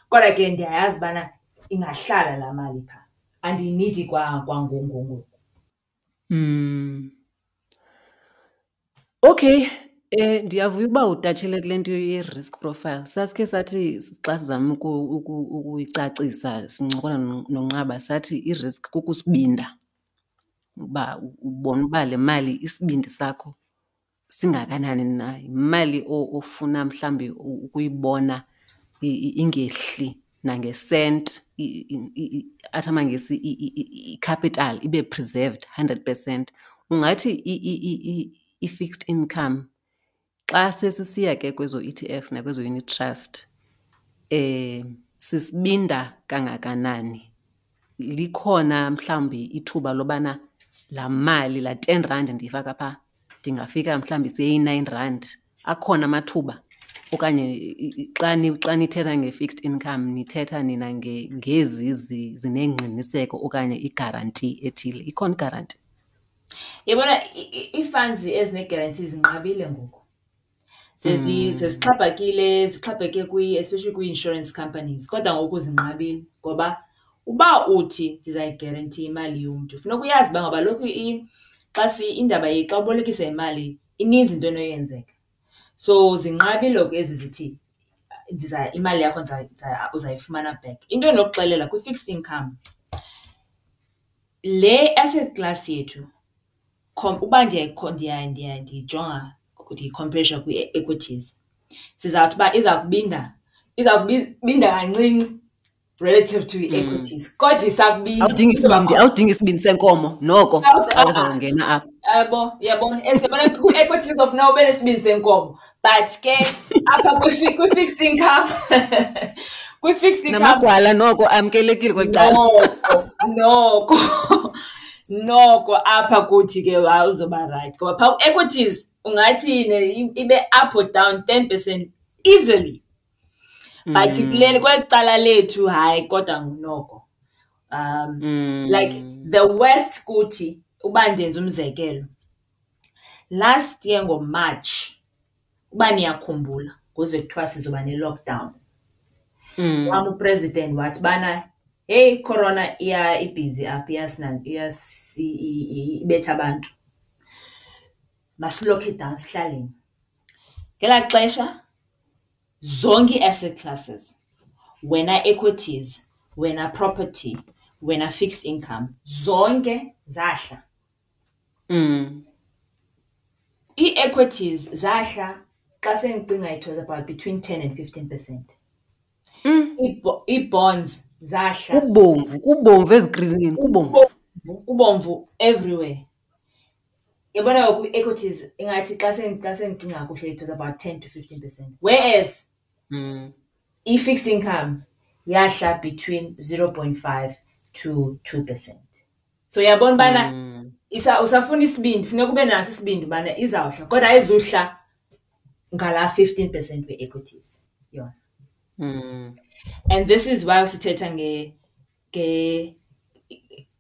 kodwa ke ndiyayazi ubana ingahlala laa mali phaa, andiyinidi kwangoku ngoku. Okay, ndiyavuya ukuba utatshile kule nto ye-risk profile. Sasikhe sathi xa sizama ukuyicacisa sincokola noNqaba, sathi i-risk kukusibinda, uba ubona uba le mali isibindi sakho singakanani na, yimali ofuna mhlawumbi ukuyibona ingehli nangesenti, athi amaNgesi i-capital ibe preserved 100%. Ungathi i-fixed income xa sesisiya ke kwezo E T Fs nakwezo unit trust, sisibinda kangakanani? Likhona mhlawumbi ithuba lobana laa mali, laa 10 rand ndiyifaka phaa, ndingafika mhlawumbi seyi-9 rand? Akhona amathuba? Okanye xa nithetha nge-fixed income nithetha nina ngezi zinengqiniseko okanye igaranti ethile? Ikhona igaranti? Yabona, ii-funds ezine-guarantee zinqabile ngoku. Sezixhaphakile, zixhaphake especially kwii-insurance companies, kodwa ngoku zinqabile ngoba Uba uthi ndizayigerentiya imali yomntu, funeka uyazi uba ngaba lokhu xa indaba xa ubolekisa imali ininzi into enoyenzeka. So zinqabile ke ezi zithi imali yakho uzayifumana back. Into endinokuxelela kwi-fixed income, le asset class yethu uba ndiyijonga ndiyikhomperisha kwii-equities, sizawuthi uba iza kubinda, iza kubinda kancinci relative to ii-equities, kodwa isakubinda. Awudingi isibindi, awudingi isibindi senkomo noko xa uzawungena apha. Yabo, uyabona, yabona kwii-equities of now ube nesibindi senkomo, but ke apha kwi-fixed income, kwi-fixed income namagwala noko amkelekile kweli cala. Noko, noko, noko apha kuthi ke hayi uzoba right, ngoba phaa ku-equities ungathi ibe up or down 10% easily. But kuleli kweli cala lethu hayi kodwa noko. Like the worst kuthi uba ndenza umzekelo. Last year ngoMarch, uba niyakhumbula, kuze kuthiwa sizoba ne-lockdown. Wam upresident wathi bana, hey, corona iya ibhizi apha, ibetha abantu. Masilokhe down sihlaleni. Ngelaa xesha zonke ii-asset classes, wena equities, wena property, wena fixed income, zonke zahla. Ii-equities zahla xa sendicinga it was about between 10 and 15%. Ii-bonds zahla. Kubomvu, kubomvu ezikrinini, kubomvu. Kubomvu, kubomvu everywhere. Yabona ngoku ii-equities ingathi xa sendicinga kakuhle it was about 10 to 15%. Whereas i-fixed income yahla between 0.5 to 2%. So uyabona ubana usafuna isibindi, funeka ube naso isibindi ubana izawuhla, kodwa ayizuhla ngalaa 15% we-equities yona. And this is why sithetha nge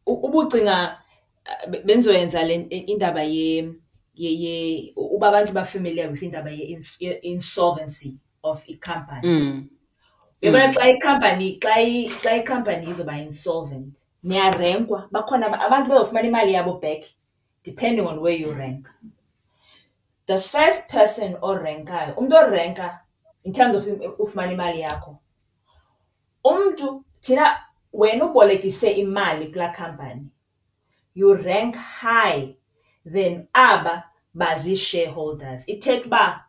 ubucinga benzoyenza le indaba ye, ye, ye uba abantu ba familiar with indaba ye insolvency of i-company. Uyabona xa i-company, xa i, xa i-company izoba insolvent, niyarenkwa, bakhona abantu bazofumana imali yabo back depending on where you rank. The first person orenkayo, umntu orenka in terms of ufumana imali yakho, umntu thina wena ubolekise imali kulaa company, you rank high than aba bazi-shareholders. Ithetha uba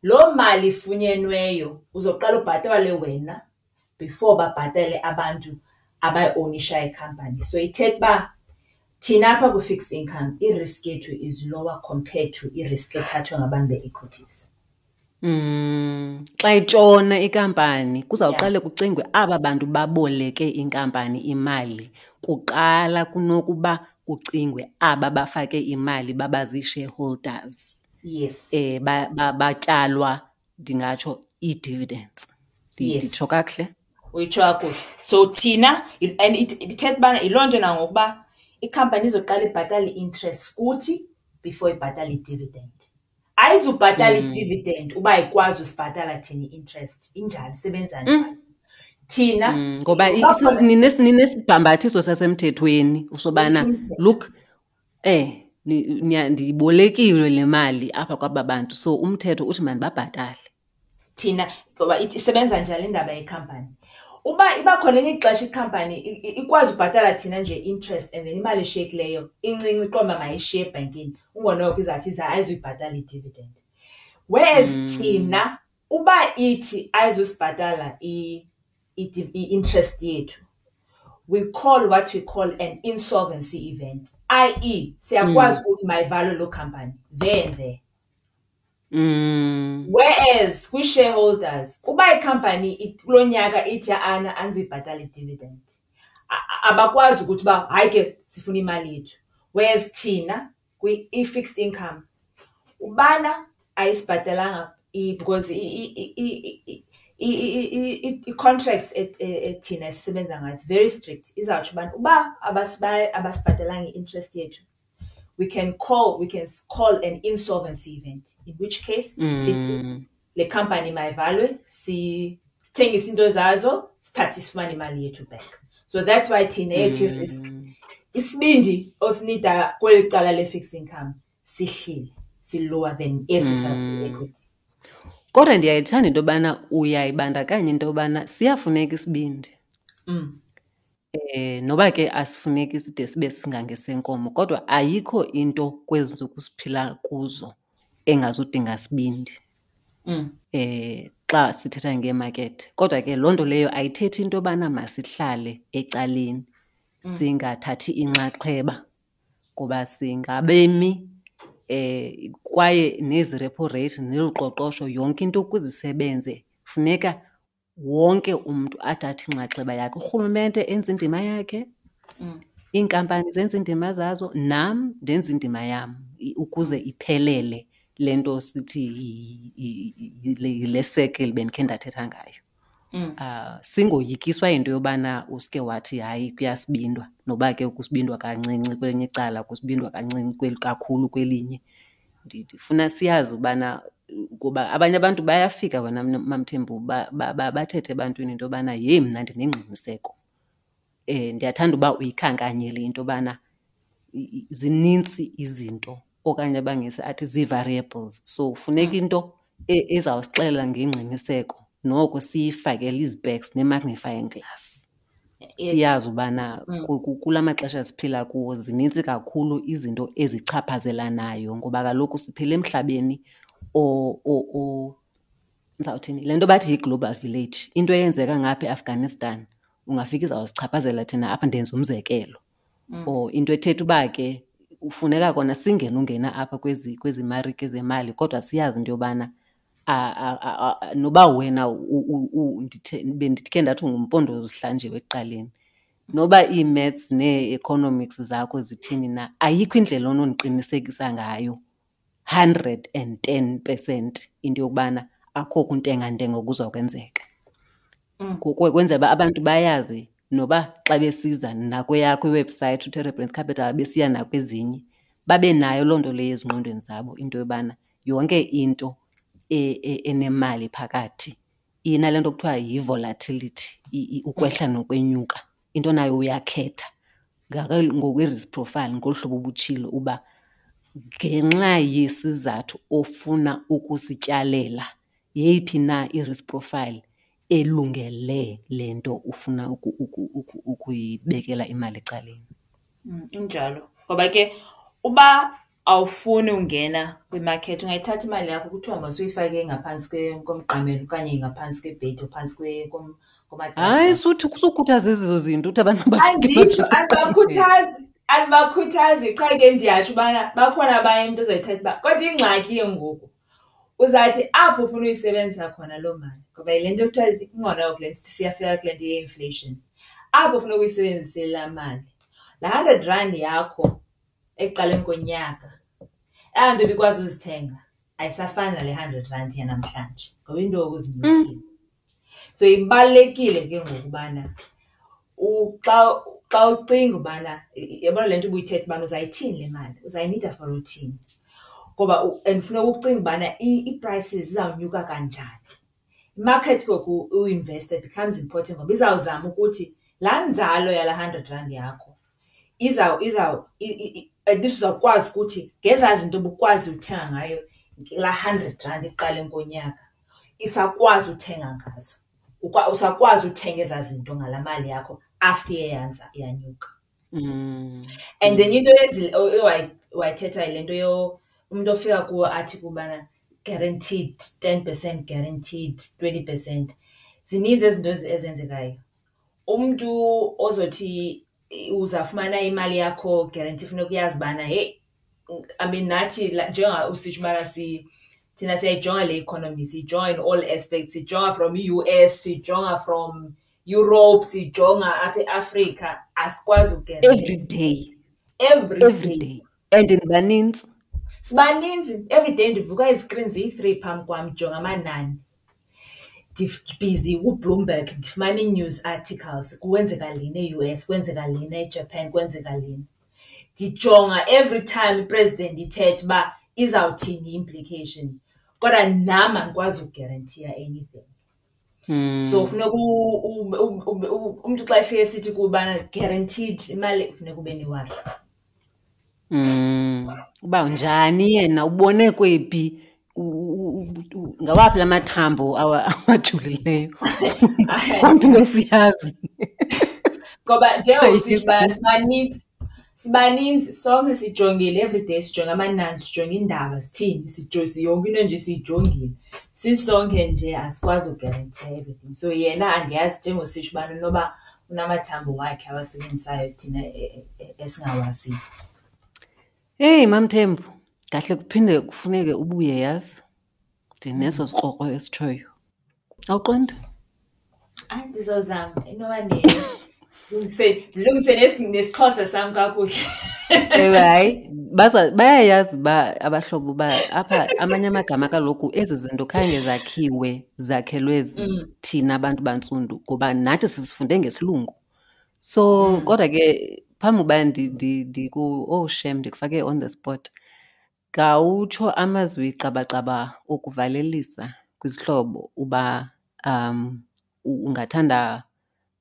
loo mali ifunyenweyo uzoqala ubhatale wena before babhatale abantu abayi-ownishayo ikhampani. So ithetha uba thina apha kwi-fixed income i-risk yethu is lower compared to i-risk ethathwa ngabantu be-equities. Xa itshona inkampani kuzawuqale kucingwe aba bantu baboleke inkampani imali kuqala kunokuba kucingwe aba bafake imali baba zii-shareholders. Batyalwa ndingatsho ii-dividends. Nditsho kakuhle? Uyitsho kakuhle. So thina, and ithetha ubana yiloo nto nangokuba ikhampani izoqala ibhatale i-interest kuthi before ibhatale i-dividend. Ayizubhatala i-dividend uba ayikwazi usibhatala thina i-interest. Injalo, isebenza njalo. Thina, Ngoba uba khona ninesibhambathiso sasemthethweni usobana, Umthetho. look, ndiyibolekile le mali apha kwaba bantu, so umthetho uthi mandibabhatale. Thina, ngoba isebenza njalo indaba yekhampani. Uba iba khona elinye ixesha ikhampani ikwazi ubhatala thina nje interest and then imali eshiyekileyo incinci iqonda uba mayishiye ebhankini, ungonoko izawuthi ayizuyibhatala i-dividend. Whereas thina uba ithi ayizusibhatala i-interest yethu, we call what we call an insolvency event, that is siyakwazi ukuthi mayivalwe loo company there and there. Whereas kwi-shareholders, uba ikhampani kulo nyaka ithi ana andizuyibhatala i-dividend, abakwazi ukuthi uba hayi ke sifuna imali yethu. Whereas thina kwi-fixed income, ubana ayisibhatalanga because i-contracts ethina esisebenza ngayo, it's very strict. Izawutsho ubana uba abasibhatalanga i-interest yethu, we can call an insolvency event, in which case sithi le company mayivalwe, sithengise into zazo, sithathe sifumane imali yethu back. So that's why thina eyethu i-risk, isibindi osinida kweli cala le-fixed income sihlile, si-lower than esi sasikwi-equity. Kodwa ndiyayithanda into yobana uyayibandakanya into yobana siyafuneka isibindi. Noba ke asifuneki side sibe singangesenkomo, kodwa ayikho into kwezi ntsuku siphila kuzo engazudinga sibindi. Xa sithetha ngeemakethe. Kodwa ke loo nto leyo ayithethi into yobana masihlale ecaleni, singathathi inxaxheba, ngoba singabemi, kwaye nezi repo rate nolu qoqosho, yonke into ukuze isebenze funeka wonke umntu athathe inxaxheba yakhe. Urhulumente enze indima yakhe, iinkampani zenze iindima zazo, nam ndenze indima yam ukuze iphelele le nto sithi yile circle bendikhe ndathetha ngayo. Singoyikiswa yinto yobana uske wathi hayi kuyasibindwa, noba ke kusibindwa kancinci kwelinye icala, kusibindwa kancinci kakhulu kwelinye. Ndifuna siyazi ubana, kuba abanye abantu bayafika wena MaMthembu bathethe ebantwini into yobana yeyi mna ndinengqiniseko. Ndiyathanda uba uyikhankanyile into yobana zinintsi izinto okanye abangesi athi zii-variables. So funeka into ezawusixelela ngengqiniseko, noko siyifakele izipeks ne-magnifying glass. Siyazi ubana kula maxesha siphila kuwo zinintsi kakhulu izinto ezichaphazelanayo, ngoba kaloku siphila emhlabeni ndizawuthini, le nto bathi yi-global village. Into eyenzeka ngapha eAfghanistan ungafika izawusichaphazela thina apha, ndenza umzekelo. Or into ethetha uba ke kufuneka kona singene ungena apha kwezi marike zemali, kodwa siyazi into yobana noba wena bendikhe ndathi ungumpondo zihlanjiwe ekuqaleni, noba ii-maths nee-economics zakho zithini na, ayikho indlela onondiqinisekisa ngayo 110% into yokubana akho kuntengantenga kuzokwenzeka. Kwenzela uba abantu bayazi noba xa besiza nakweyakho iwebhusayithi uTerebrand Capital, besiya nakwezinye, babe nayo loo nto leyo ezingqondweni zabo, into yobana yonke into enemali phakathi inale nto kuthiwa yi-volatility, ukwehla nokwenyuka. Into nayo uyakhetha ngokwe-risk profile, ngolu hlobo ubutshilo uba ngenxa yesizathu ofuna ukusityalela, yeyiphi na i-risk profile elungele le nto ufuna ukuyibekela imali ecaleni. Injalo. Ngoba ke uba awufuni ungena kwimakethi, ungayithatha imali yakho kuthiwa masuyifake ngaphantsi komqamelo okanye ngaphantsi kwebhedi, phantsi komatrasi. Hayi, sukhuthaza ezo zinto, uthi abantu bafike Anditsho, bathi andibakhuthazi, qha ke ndiyatsho ubana bakhona abanye umntu ozoyithatha uba, kodwa ingxaki ke ngoku uzawuthi apho ufuna uyisebenzisa khona loo mali, ngoba yile nto kuthiwa ingona ngoku le nto siyafika kule nto ye-inflation. Apho ufuna ukuyisebenzisa laa mali, laa hundred rand yakho ekuqaleni konyaka, eyona nto ibikwazi uzithenga ayisafani nale hundred rand yanamhlanje ngoba iinto ngoku zinyukile. So ibalulekile ke ngoku ubana xa ucinga ubana, yabona le nto ubuyithetha ubana uzayithini le mali, uzayinida for uthini. Ngoba and funeka ucinge ubana ii-prices zizawunyuka kanjani. Imarket ke ngoku uinvesta becomes important ngoba izawuzama ukuthi laa nzalo yalaa hundred rand yakho at least uzawukwazi ukuthi ngezaa zinto ubukwazi uthenga ngayo laa hundred rand ekuqaleni konyaka, isakwazi uthenga ngazo. Usakwazi uthenga ezaa zinto ngalaa mali yakho after iye yanyuka. And then into wayithetha yile nto umntu ofika kuwe athi kubana guaranteed 10%, guaranteed 20%. Zininzi ezi zinto ezenzekayo. Umntu ozothi uzawufumana imali yakho guarantee, funeka uyazi ubana heyi, I mean nathi njenga usitsho ubana thina siyayijonga le economy, siyijonga in all aspects, siyijonga from i-U S, siyijonga from Europe, siyijonga apha eAfrica, asikwazi uguarantee. Every day. Every Every day. day. And nibaninzi. Sibaninzi. Every day ndivuka izikrini ziyi-3 phambi kwam, ndijonga amanani. Ndibhizi kuBloomberg, ndifumana ii-news articles, kwenzeka lena e-U S, kwenzeka lena eJapan, kwenzeka lena. Ndijonga every time ipresident ithetha uba izawuthini i-implication. Kodwa nam andikwazi ukuguaranteeya anything. So funeka umntu xa efika esithi kubana guaranteed imali, funeka ube newari. Uba njani yena ubone kwephi, ngawaphi la mathambo awajulileyo? Umntu ngosiyazi. Ngoba njengoba usitsho uba sibaninzi, sibaninzi sonke sijongile everyday, sijonge amanani, sijonge iindaba zithini, yonke into nje siyijongile. Sisonke nje asikwazi uguarantee everything. So yena andiyazi njengoba usitsho ubana inoba unamathambo wakhe awasebenzisayo thina esingawaziyo. Heyi, MaMthembu, ngahle kuphinde kufuneke ubuye yazi. Ndineso sikrokro esitshoyo. Awuqondi? Hayi, ndizozama inoba ndilungise nesiXhosa sam kakuhle. Ewe, hayi, bayayazi uba abahlobo uba apha amanye amagama kaloku ezi zinto khange zakhiwe zakhelwe thina bantu bantsundu ngoba nathi sizifunde ngesilungu. So kodwa ke phambi uba oh shem, ndikufake on the spot. Khawutsho amazwi qabaqaba okuvalelisa kwizihlobo uba ungathanda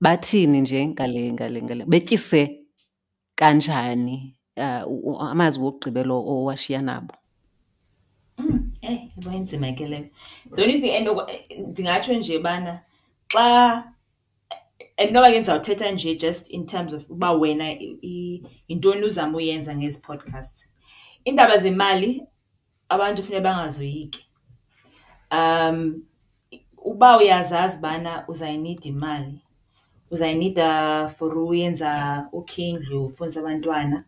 bathini nje ngale, betyise kanjani, amazwi wokugqibela owashiya nabo? Eyi, yabo inzima ke leyo. The only thing ndingatsho nje bana xa, and noba ke ndizawuthetha nje just in terms of uba wena yintoni uzama uyenza ngezi podcasts. Iindaba zemali abantu funeka bangazoyiki. Uba uyazazi ubana uzayinida imali, uzayinida for uyenza ukhe indlu, ufundise abantwana,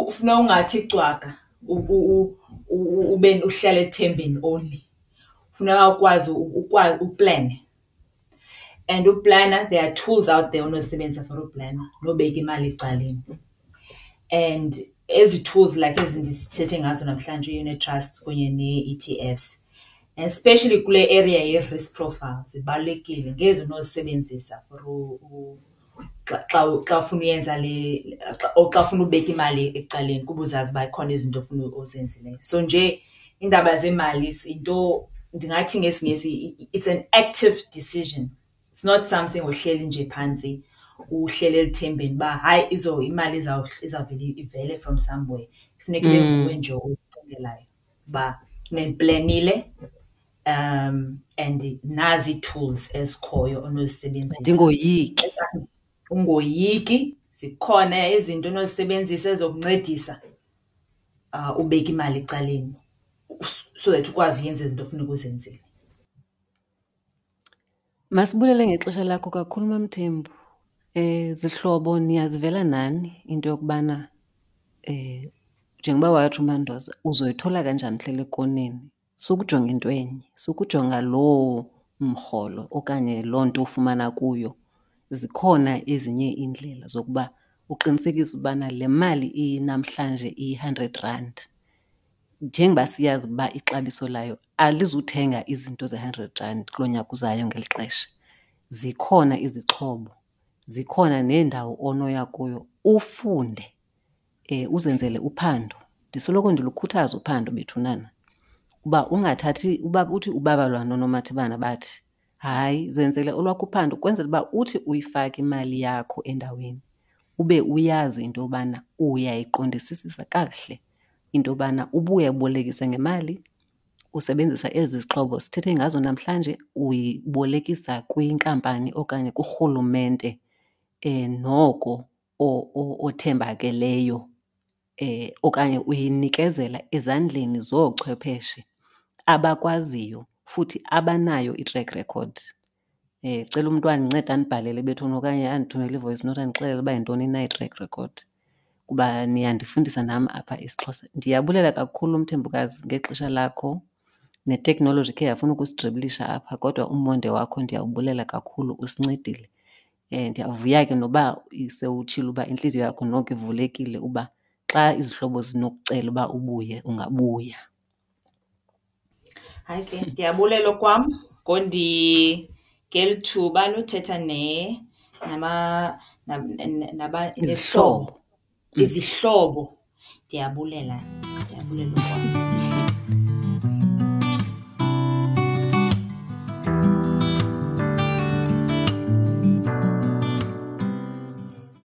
funeka ungathi cwaka ube uhlale ethembeni only. Funeka ukwazi uplane. And uplana, there are tools out there onozisebenzisa for uplana nobeka imali ecaleni. And ezi tools like ezi ndisithethe ngazo namhlanje, i-unit trusts kunye nee-E T Fs, especially kule area ye-risk profile, zibalulekile. Ngezi unozisebenzisa for xa, xa ufuna uyenza le, xa, or xa ufuna ubeka imali ecaleni kuba uzazi uba ikhona izinto ofuna ozenzileyo. So nje iindaba zemali yinto ndingathi ngesiNgesi it's an active decision. It's not something ohleli nje phantsi uhlele elithembeni uba hayi imali izawuvele ivele from somewhere. Funeka ibe nguwe nje ozicingelayo uba ndiplanile, and nazi ii-tools ezikhoyo onozisebenzisa. Ndingoyiki. Ungoyiki, zikhona izinto onozisebenzisa ezizokuncedisa ubeke imali ecaleni so that ukwazi uyenza izinto ofuneka uzenzile. Masibulele ngexesha lakho kakhulu, MaMthembu. Zihlobo, niyazivela nani into yokubana njengoba watsho uMandoza, uzoyithola kanjani hlele ekoneni? Sukujonga into enye, sukujonga loo mrholo okanye loo nto ufumana kuyo. Zikhona ezinye iindlela zokuba uqinisekise ubana le mali inamhlanje iyi-hundred rand, njengoba siyazi uba ixabiso layo alizuthenga izinto ze-hundred rand kulo nyaka uzayo ngeli xesha. Zikhona izixhobo, zikhona neendawo onoya kuyo ufunde, uzenzele uphando. Ndisoloko ndilukhuthaza uphando bethunana, uba ungathathi, uba uthi ubabalwa nonomathibana bathi, hayi, zenzele olwakho uphando ukwenzela uba uthi uyifake imali yakho endaweni ube uyazi into yobana uyayiqondisisisa kakuhle into yobana ubuye ubolekise ngemali usebenzisa ezi zixhobo sithethe ngazo namhlanje, uyibolekisa kwinkampani okanye kurhulumente noko othembakeleyo okanye uyinikezela ezandleni zoochwepheshe abakwaziyo futhi abanayo i-track record. Cela umntu andincede andibhalele bethuna okanye andithumele i-voice note andixelele uba yintoni na i-track record, kuba niyandifundisa nam apha isiXhosa. Ndiyabulela kakhulu Mthembukazi ngexesha lakho, neteknoloji ikhe yafuna ukusidribilisha apha kodwa umonde wakho ndiyawubulela kakhulu, usincedile. Ndiyavuya ke noba sewutshilo uba intliziyo yakho noko ivulekile uba xa izihlobo zinokucela uba ubuye ungabuya. Hayi ke, ndiyabulela okwam ngeli thuba lothetha Izihlobo. Izihlobo. Ndiyabulela, ndiyabulela okwam.